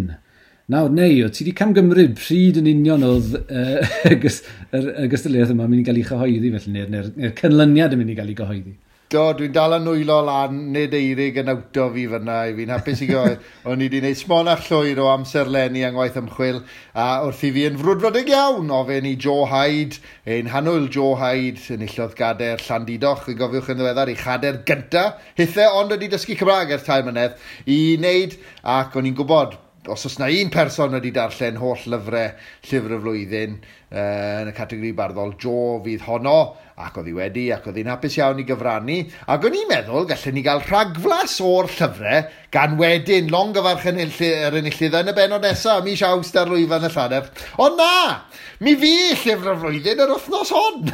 Nawr, neu, o ti wedi camgymryd pryd yn union oedd y gystadleuaeth yma yn mynd i gael ei chyhoeddi felly, neu'r canlyniad yn mynd i gael ei gyhoeddi? Do, dwi'n dal yn nwylo lan, nid Eirig yn awto fi fyna, i fi'n hapus i gael. O'n i wedi gwneud smonach llwyr o amserlenni yng ngwaith ymchwil, a wrth i fi yn frwdfrydig iawn ofyn i Joe Hyde, ein hanwyl Joe Hyde, enillodd gader Llandudoch, yn gofiwch yn ddiweddar, ei chader gynta, hithe ond wedi dysgu Cymraeg ers 3 mlynedd, i wneud, ac o'n i'n gwybod Os oes na un person wedi darllen holl lyfrau llyfr y flwyddyn yn y categori barddol, Jo fydd honno, ac oedd hi wedi, ac oedd hi'n hapus iawn i gyfrannu. Ac o'n i'n meddwl gallen ni gael rhagflas o'r llyfrau gan wedyn longyfarch yr enillydd yn y bennod nesaf, mis Awst ar lwyfan y Llannerch. Ond na! Mi fu llyfr y flwyddyn yr wythnos hon!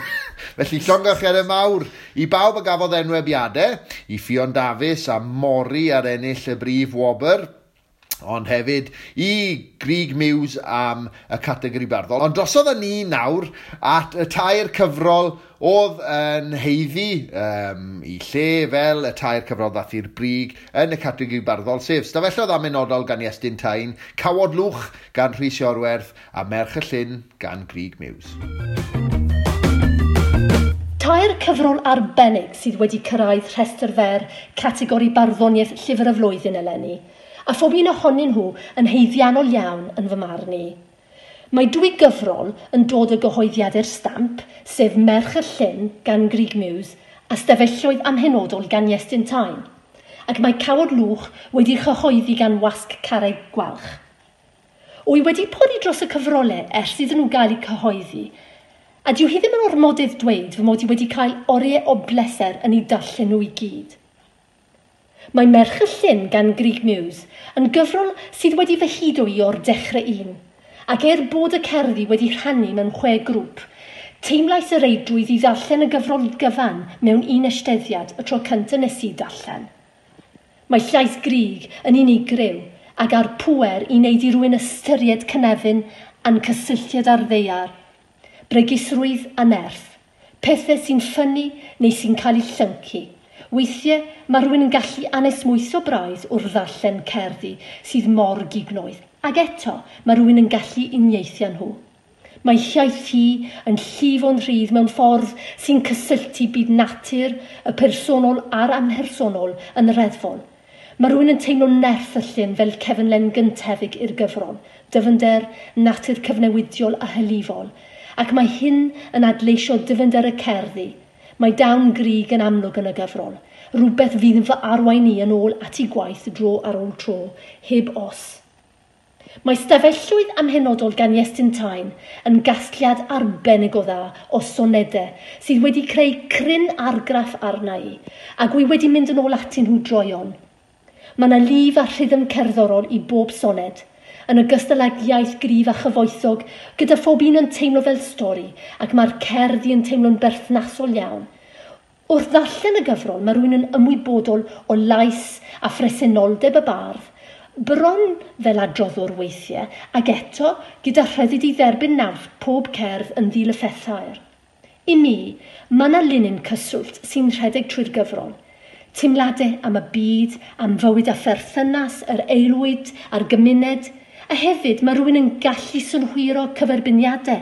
Felly llongyfarchiadau mawr i bawb a gafodd enwebiadau, i Ffion Dafis a Mori ar ennill y brif wobr, ond hefyd i Grug Muse am y categori barddol. Ond drosodd â ni nawr at y tair cyfrol oedd yn haeddu i lle fel y tair cyfrol ddath i'r brig yn y categori barddol, sef Stafelloedd Amhenodol gan Iestyn Tyne, Cawod Lwch gan Rhys Iorwerth a Merch y Llyn gan Grug Muse. Tair cyfrol arbennig sydd wedi cyrraedd rhestr fer categori barddoniaeth llyfr y flwyddyn eleni, a phob un ohonyn nhw yn haeddiannol iawn yn fy marn i. Mae dwy gyfrol yn dod o gyhoeddiadau'r Stamp, sef Merch y Llyn gan Grug Muse a Stafelloedd Amhenodol gan Iestyn Tyne, ac mae Cawod Lwch wedi chyhoeddi gan Wasg Carreg Gwalch. Wy wedi pori dros y cyfrolau ers iddyn nhw gael eu cyhoeddi, a dyw hi ddim yn ormodydd dweud fy mod i wedi cael oriau o bleser yn eu darllen nhw i gyd. Mae Merch y Llyn gan Grug Muse yn gyfrol sydd wedi fy hudo i o'r dechrau un, ac er bod y cerddi wedi rhannu mewn 6 grŵp, teimlais y reidrwydd i ddarllen y gyfrol gyfan mewn un eisteddiad y tro cyntaf nes i darllen. Mae llais Grug yn unigryw ac a'r pŵer i wneud i rywun ystyried cynefin a'n cysylltiad â'r ddaear, bregusrwydd a nerth, pethau sy'n ffynnu neu sy'n cael eu llyncu. Weithiau mae rhywun yn gallu anesmwytho braidd wrth ddarllen cerddi sydd mor gignoeth, ac eto mae rhywun yn gallu uniaethu â nhw. Mae iaith hi yn llifo'n rhydd mewn ffordd sy'n cysylltu byd natur, y personol a'r amhersonol yn reddfol. Mae rhywun yn teimlo nerth y llyn fel cefnlen gyntefig i'r gyfrol, dyfnder, natur cyfnewidiol a hylifol, ac mae hyn yn adleisio dyfnder y cerddi. Mae dawn Grug yn amlwg yn y gyfrol, rhywbeth fydd yn fy arwain i yn ôl at ei gwaith dro ar ôl tro, heb os. Mae Stafelloedd Amhenodol gan Iestyn Tyne yn gasgliad arbennig o dda o sonedau sydd wedi creu cryn argraff arna i, ac wy wedi mynd yn ôl atyn nhw droeon. Mae yna lif a rhythm cerddorol i bob soned, yn ogystal ag iaith gryf a chyfoethog, gyda phob un yn teimlo fel stori, ac mae'r cerddi yn teimlo'n berthnasol iawn. Wrth ddarllen y gyfrol, mae rhywun yn ymwybodol o lais a phresenoldeb y bardd, bron fel adroddwr weithiau, ac eto gyda rhyddid i dderbyn naws pob cerdd yn ddilyffethair. I mi, mae yna linyn cyswllt sy'n rhedeg trwy'r gyfrol. Teimladau am y byd, am fywyd a pherthynas, yr aelwyd a'r gymuned, a hefyd mae rhywun yn gallu synhwyro cyferbyniadau,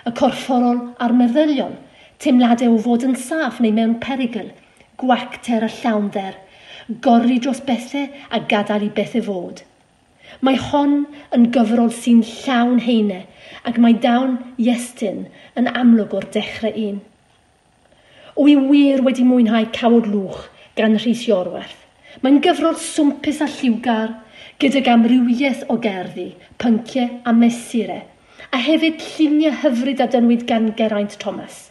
y corfforol a'r meddyliol, teimladau o fod yn saff neu mewn perygl, gwacter a llawnder, gori dros bethau a gadael i bethau fod. Mae hon yn gyfrol sy'n llawn heine, ac mae dawn Iestyn yn amlwg o'r dechrau un. Wy wir wedi mwynhau Cawod Lwch gan Rhys Iorwerth. Mae'n gyfrol swmpus a lliwgar, gydag amrywiaeth o gerddi, pynciau a mesurau, a hefyd lluniau hyfryd a dynwyd gan Geraint Thomas.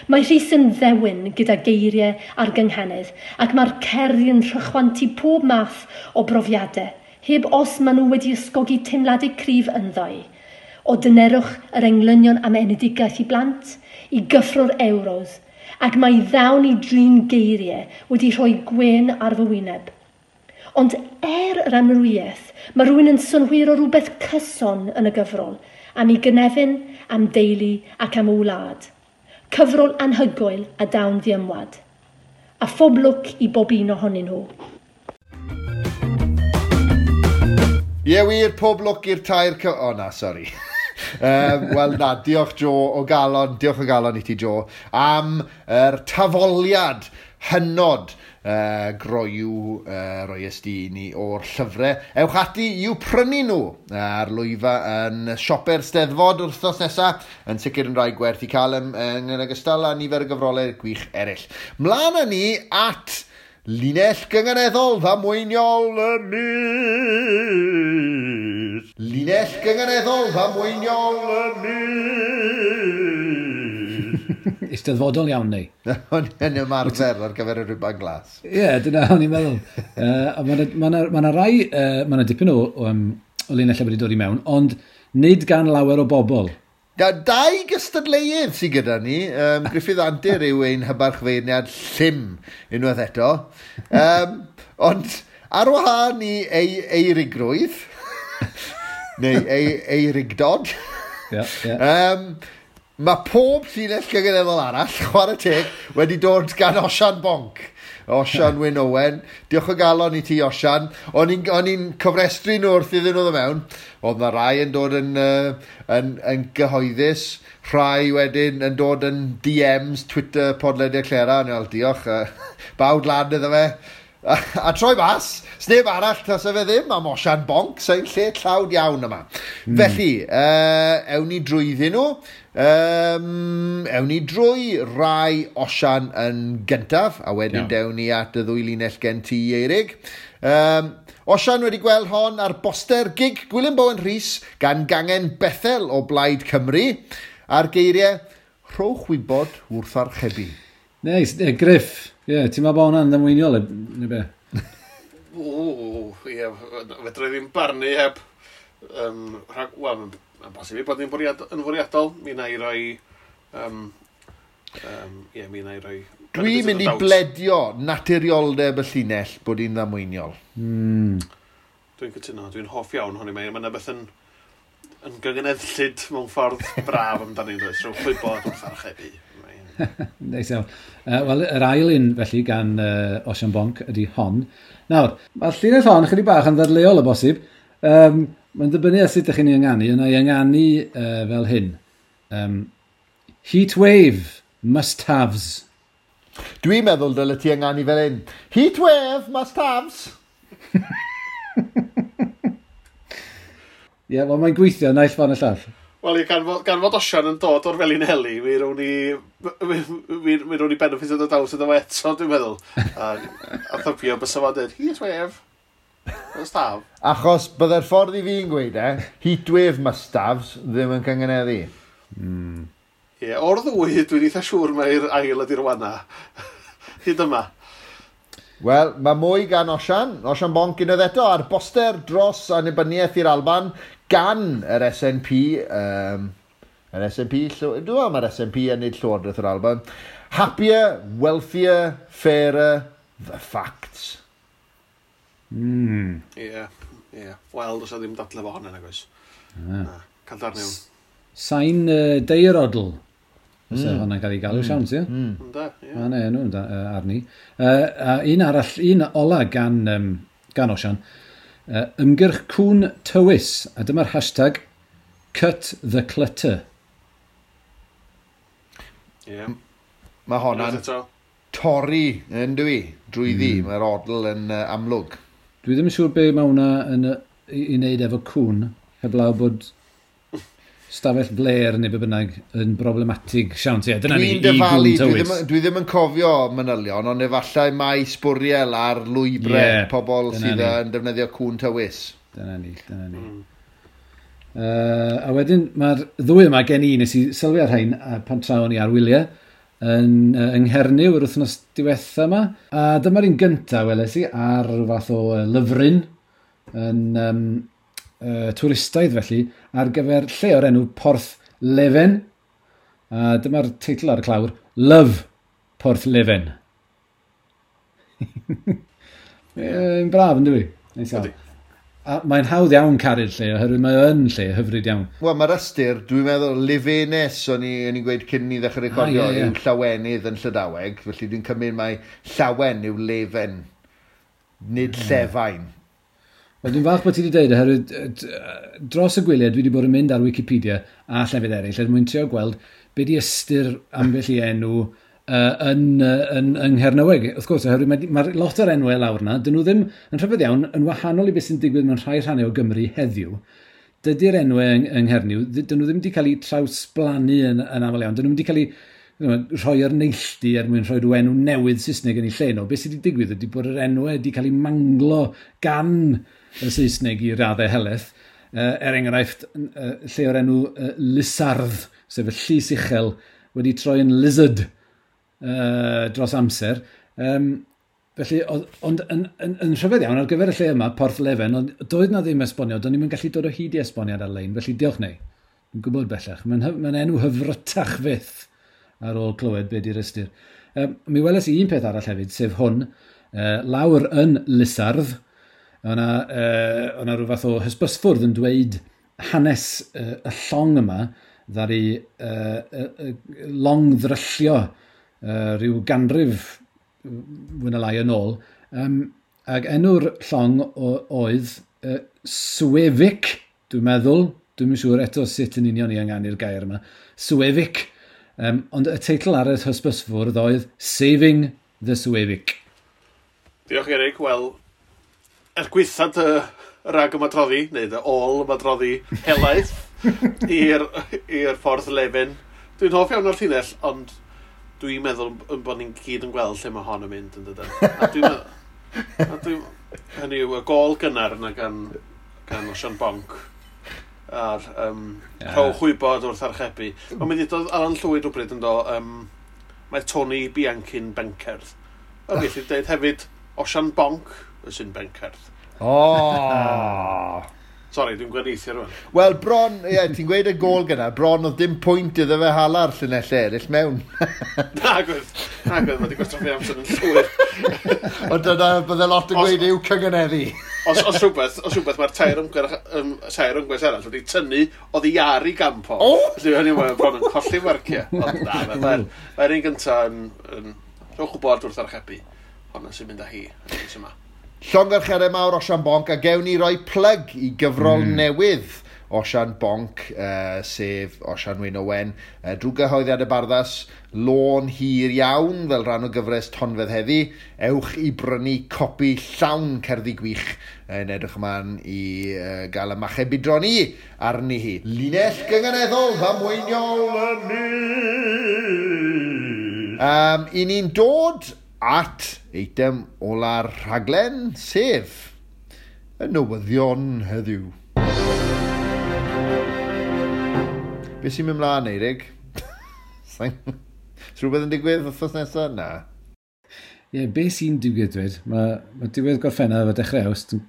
Mae Rhys yn ddewin gyda geiriau a'r gynghanedd, ac mae'r cerddi yn rhychwantu pob math o brofiadau, heb os maen nhw wedi ysgogi teimladau cryf ynddo. O dynerwch yr englynion am enedigaeth i blant, i gyffro'r Euros, ac mae ddawn i drin geiriau wedi rhoi gwên ar fy wyneb. Ond er yr amrywiaeth, mae rhywun yn synhwyro rhywbeth cyson yn y gyfrol, am ei gynefin, am deulu ac am wlad. Cyfrol anhygoel a dawn ddiymwad. A phob lwc i bob un ohonyn nhw. Ie wir, pob lwc i'r tair O na, sori. Wel na, diolch Jo o galon, diolch o galon i ti Jo, am yr tafoliad hynod groyw roes di i ni o'r llyfrau. Ewch ati i'w prynu nhw ar lwyfa yn siope'r Steddfod wythnos nesaf, yn sicr yn rhai gwerth i cael yn ogystal â nifer o gyfrolau gwych eraill. Mlaen â ni at linell gynganeddol ddamweiniol y mis. Llinell gynganeddol ddamweiniol y mis. Eisteddfodol iawn neu? Yn ymarfer ar gyfer y rhuban glas. Ie, yeah, dyna o'n i'n meddwl. Mae yna rai, mae yna dipyn o linellau wedi dod i mewn, ond nid gan lawer o bobl. Dau gystadleuedd sydd gyda ni. Gruffydd Antur yw ein hybarchfeirniad llym unwaith eto. Ond ar wahân i ei eirigrwydd, neu ei eirigdod, yeah, yeah. Mae pob llinell gynganeddol arall, chwarae teg, wedi dod gan Osian Bonc. Osian Wyn Owen. Diolch o galon i ti, Osian. O'n i'n cofrestru nhw wrth iddyn nhw ddod mewn. Oedd na rai yn dod yn gyhoeddus, rhai wedyn yn dod yn DMs, Twitter, podlediad Clera. O'n i'n fel, diolch, bawd lan iddo fe. A troi mas, sneb arall tasa fe ddim am Osian Bonc, sa'n lle tlawd iawn yma. Felly, ewn ni drwyddyn nhw. Ewn ni drwy rai Osian yn gyntaf, a wedyn dewn ni at y ddwy linell gen ti, Eirig. Osian wedi gweld hon ar boster gig Gwilym Bowen Rhys gan gangen Bethel o Blaid Cymru, a'r geiriau, rhowch wybod wrth archebu. Neis, Griff, ie, ti'n meddwl bod hwnna'n ddamweiniol, neu be? O, ie, fedra i ddim barnu heb. Wel, mae'n bosib i bod ni'n yn fwriadol. Mi na i roi... Ie, mi na i roi... Dwi'n mynd i bledio naturioldeb y llinell bod hi'n ddamweiniol. Dwi'n cytuno, dwi'n hoff iawn honni. Mae yna beth yn gyngeneddllyd mewn ffordd braf amdani, does? Rhowch wybod wrth archebu. Neis iawn. Wel, yr ail un, felly, gan Osian Bonc ydy hon. Nawr, mae'r llinell hon chydig bach yn ddadleuol o bosib. Mae'n dibynnu ar sut ydych chi'n ei ynganu. Yna ei ynganu fel hyn. Heat wave, must-haves. Dwi'n meddwl dyle ti ynganu fel hyn. Heat wave, must-haves. Ie, wel, mae'n gweithio naill ffordd y llall. Wel, ie, gan fod Osian yn dod o'r Felinheli, mi rown ni benefit o doubt iddo fo eto, dwi'n meddwl. A thybio bysa fo'n dweud, heat wave, must have. Achos byddai'r ffordd i fi'n gweud heat wave must haves ddim yn cyngeneddu. Ie, o'r ddwy, dwi'n eitha siŵr mai'r ail ydy'r wana. Hyd yma. Wel, mae mwy gan Osian. Osian Bonc unwaith eto ar boster dros annibyniaeth i'r Alban gan yr SNP. Yr SNP, dwi'n meddwl mae'r SNP yn neud Llywodraeth yr Alban. Happier, wealthier, fairer, the facts. Ie, ie. Wel, does 'na ddim dadle fo hwnna, nag oes. Na, cael darn iawn. Sain deirodl. Os hwnna'n cael ei galw, siawns, ie? Ynde, ie. Ma' 'na enw arni. A un arall, un ola gan Osian. Ymgyrch Cŵn Tywys. A dyma'r hashtag Cut the Clutter. Ie. Mae honna'n Unwaith eto. torri, yn dwi, drwyddi. Mae'r odl yn amlwg. Dwi ddim yn siŵr be mae hwnna yn, i wneud efo cŵn, heblaw bod stafell fler neu be bynnag yn problematig. Siawns, ie, dyna ni, Dwi'n i dyfalu, gŵn tywys. dwi ddim yn cofio manylion, ond efallai mae sbwriel ar lwybrau pobl Dyna sydd ni. yn defnyddio cŵn tywys. Dyna ni, dyna ni. A wedyn mae'r ddwy yma gen i, nes i sylwi ar rhain pan tra o'n i ar wyliau yng Nghernyw yr wythnos diwetha yma. A dyma'r un gynta weles i ar rhyw fath o lyfryn yn twristaidd felly ar gyfer lle o'r enw Porth Leven. A dyma'r teitl ar y clawr, Love Porth Leven. Yn braf, yn dwi? Neis iawn. Ydi. A mae'n hawdd iawn caru'r lle, oherwydd mae yn lle hyfryd iawn. Wel, mae'r ystyr, dwi'n meddwl, Levenes, o'n i'n gweud cyn ni ddechrau recordio, yw llawenydd yn Llydaweg, felly dwi'n cymryd mai llawen yw lefen, nid llefain. Wel, dwi'n falch bod ti wedi dweud, oherwydd dros y gwyliau dwi wedi bod yn mynd ar Wikipedia a llefydd eraill er mwyn trio gweld be di ystyr ambell i enw yn Nghernyweg. Wrth gwrs, oherwydd mae lot o'r enwau lawr na, dyn nhw ddim yn rhyfedd iawn yn wahanol i beth sy'n digwydd mewn rhai rhannau o Gymru heddiw. Dydy'r enwau yng Nghernyw, dyn nhw ddim wedi cael eu trawsblannu yn aml iawn. Dyn nhw wedi cael eu rhoi ar neilltu er mwyn rhoi rhyw enw newydd Saesneg yn ei lle nhw. Beth sydd wedi digwydd ydy bod yr enwau wedi cael eu manglo gan y Saesneg i raddau helaeth. Er enghraifft, lle o'r enw Lysardd, sef y llys uchel, wedi troi yn lizard dros amser. Felly, ond yn rhyfedd iawn, ar gyfer y lle yma, Porth Leven, ond doedd na ddim esboniad, do'n i'm yn gallu dod o hyd i esboniad ar-lein, felly diolch neu. Dwi'n gwybod bellach. Mae'n enw hyfrytach fyth ar ôl clywed be di'r ystyr. Mi weles i un peth arall hefyd, sef hwn, lawr yn Lysardd, o'na rhyw fath o hysbysfwrdd yn dweud hanes y llong yma, ddaru long ddryllio rhyw ganrif fwy na lai yn ôl. Ac enw'r llong oedd Suevic, dwi'n meddwl, dwi'm yn siŵr eto sut yn union i ynganu'r gair yma, Suevic. Ond y teitl ar y hysbysfwrdd oedd Saving the Suevic. Diolch Eric. Wel, er gwaetha dy rag ymadroddi, neu dy ôl ymadroddi helaeth i'r Ffordd Lefin. Dwi'n hoff iawn o'r llinell, ond dwi'n meddwl yn bod ni'n gyd yn gweld lle mae hon yn mynd yn dydyn. A dwi'n meddwl, hynny yw, y gôl gynnar yna gan Osian Bonc a'r rhowch wybod wrth archebu. Ond mi ddudodd Alan Llwyd rhywbryd yn do, mae Tony Bianchi'n bencerdd. A mi elli dweud hefyd Osian Bonc sy'n bencerdd. Oh! Sorry, dwi'n gwenieithio rwan. Wel, bron, ie, ti'n gweud y gôl gyna, bron oedd dim pwynt iddo fe hala'r llinellau eraill mewn. Nag oedd, mae wedi gwastraffu amser yn llwyr. Ond dyna, bydde lot yn gweud yw cyngeneddu. Os rhywbeth, mae'r tair ymgyrch arall wedi tynnu oddi ar ei gamp o. Felly hynny mae'n bron yn colli marciau. Ond na, mae'r un gyntaf yn rhowch wybod wrth archebu. Honna sy'n mynd â hi yn y mis yma. Llongyfarchiadau mawr Osian Bonc, a gewn ni roi plug i gyfrol newydd Osian Bonc, sef Osian Wyn Owen, drwy gyhoeddiad y Barddas, lôn hir iawn fel rhan o gyfres Tonfedd heddi. Ewch i brynu copi llawn cerddi gwych yn edrych ymlaen i gael y machau budron i arni hi. Linell gynganeddol ddamweiniol y mis. I ni'n dod at eitem ola'r rhaglen, sef y newyddion heddiw. Be sy'n mynd mlaen, Eirig? Is rhywbeth yn digwydd wythnos nesaf? Na. Ie, be sy'n digwydd dweud? Mae diwedd Gorffennaf a dechrau Awst yn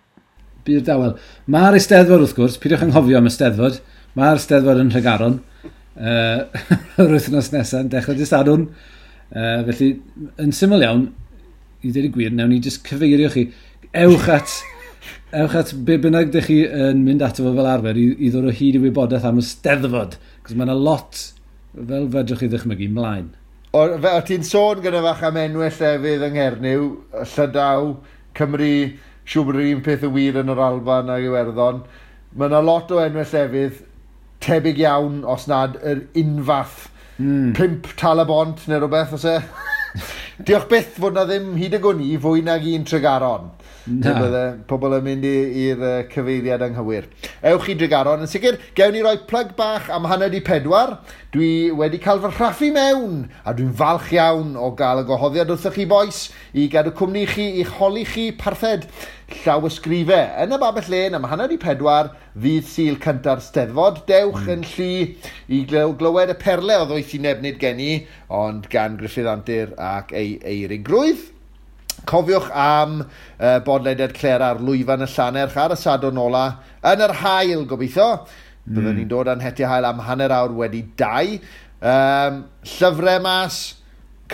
byd dawel. Mae'r Eisteddfod, wrth gwrs, peidiwch anghofio am y Steddfod. Mae'r Steddfod yn Nhregaron. Yr wythnos nesaf yn dechrau dydd Sadwrn. Felly, yn syml iawn, i ddweud y gwir, nawn ni jyst cyfeirio chi. Ewch at be bynnag dych chi yn mynd ato fo fel arfer i ddod o hyd i wybodaeth am y Steddfod. Cos mae yna lot, fel fedrwch chi ddychmygu, mlaen. O ti'n sôn gyda fach am enwau llefydd yng Nghernyw, Llydaw, Cymru, siŵr bod yr un peth yn wir yn yr Alban ac Iwerddon. Mae yna lot o enwau llefydd tebyg iawn, os nad yr unfath. 5 Tal-y-bont neu rhywbeth, oes e? Diolch byth fod na ddim hyd y gwn i fwy nag un Tregaron. Na. Bydde pobl yn mynd i'r cyfeiriad anghywir. Ewch i Dregaron. Yn sicr, gewn ni roi plug bach am 3:30. Dwi wedi cael fy rhaffu mewn, a dwi'n falch iawn o gael y gwahoddiad wrthych chi bois i gadw cwmni chi, i'ch holi chi parthed llawysgrifau yn y Babell Lên am 3:30 ddydd Sul cynta'r Steddfod. Dewch yn llu i glywed y perle o ddoethineb nid gen i, ond gan Gruffydd Antur ac ei eirigrwydd. Cofiwch am bodlediad Clera ar lwyfan y Llannerch ar y Sadwrn ola yn yr haul, gobeithio. Byddwn ni'n dod â'n hetiau haul am 2:30. Llyfrau mas,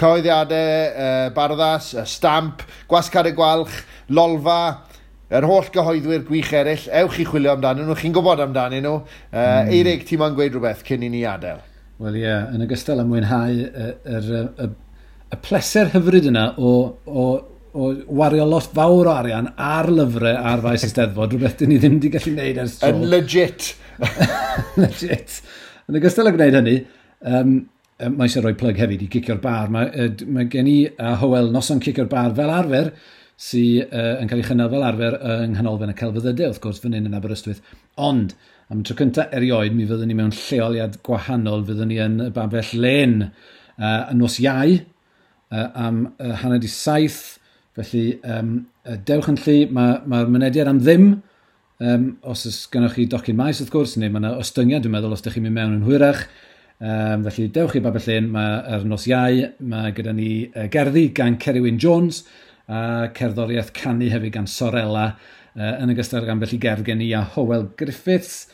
cyhoeddiadau Barddas, y Stamp, Gwasg Carreg Gwalch, Lolfa, yr holl gyhoeddwyr gwych eraill. Ewch i chwilio amdanyn nhw, chi'n gwybod amdanyn nhw. Eirig, ti moyn gweud rhywbeth cyn i ni adael? Wel ie, yn ogystal â mwynhau y pleser hyfryd yna o wario lot fawr o arian ar lyfrau ar faes y Steddfod, rhywbeth dyn ni ddim wedi gallu gwneud ers tro. Yn legit. Legit. Yn ogystal â gwneud hynny, mae eisiau rhoi plug hefyd i Gicio'r Bar. Mae gen i a Hywel noson Cicio'r Bar fel arfer, sydd yn cael ei chynnal fel arfer yng Nghanolfan y Celfyddydau, wrth gwrs, fan hyn yn Aberystwyth. Ond, am y tro cyntaf erioed, mi fyddwn ni mewn lleoliad gwahanol, fyddwn ni yn y Babell Lên yn nos Iau, am 6:30. Felly, dewch yn llu, mae'r mynediad am ddim, Os oes gennoch chi docyn maes, wrth gwrs, neu mae yna ostyngiad, dwi'n meddwl, os ydych chi'n mynd mewn yn hwyrach. Felly, dewch i Babell Lên, mae ar nos Iau, mae gyda ni gerddi gan Ceri Wyn Jones, a cerddoriaeth canu hefyd gan Sorella, yn ogystal ag ambell i gerdd gen i a Hywel Griffiths.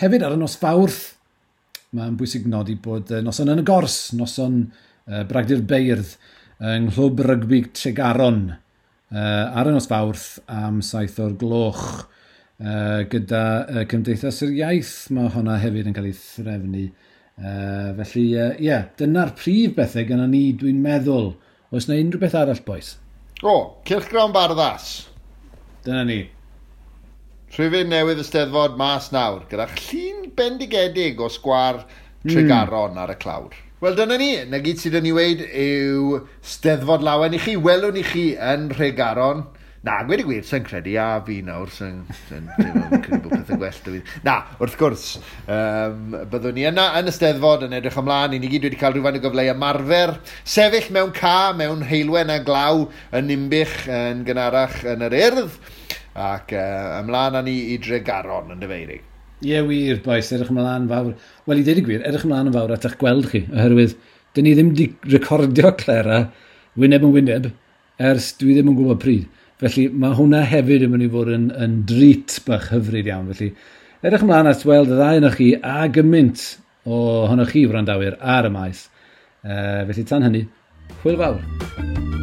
Hefyd ar y nos Fawrth, mae'n bwysig nodi bod noson yn y gors, noson Bragdy'r Beirdd, yng Nghlwb Rygbi Tregaron, ar y nos Fawrth am 7 o'r gloch. Gyda Cymdeithas yr Iaith, mae hwnna hefyd yn cael ei threfnu. Felly, ie, yeah, dyna'r prif bethau gyda ni, dwi'n meddwl. Oes na unrhyw beth arall, boys? O, Cylchgrawn Barddas. Dyna ni. Rhifyn newydd y Steddfod mas nawr, gyda llun bendigedig o sgwâr Tregaron ar y clawr. Wel, dyna ni. Na gyd sydd yn ei weud yw Steddfod lawen i chi. Welwn i chi yn Nhregaron. Na, gweud y gwir, sy'n credu, a fi nawr, sy'n credu bod pethau gwell 'da fi. Na, wrth gwrs, byddwn ni yna yn y Steddfod yn edrych ymlaen. I ni gyd wedi cael rhywfaint o gyfle i ymarfer. Sefyll mewn ca, mewn heulwen a glaw yn Ninbych yn gynharach yn yr Urdd. Ac ymlaen â ni i Dregaron yn dyfeirig. Ie, yeah, wir, boys, edrych ymlaen fawr. Wel, i ddeud y gwir, edrych ymlaen yn fawr at eich gweld chi, oherwydd dyn ni ddim wedi recordio Clera wyneb yn wyneb ers dwi ddim yn gwybod pryd. Felly mae hwnna hefyd yn mynd i fod yn drit bach hyfryd iawn. Felly edrych ymlaen at weld y ddau ohonoch chi a gymaint ohonoch chi wrandawyr ar y maes. Felly tan hynny, hwyl fawr.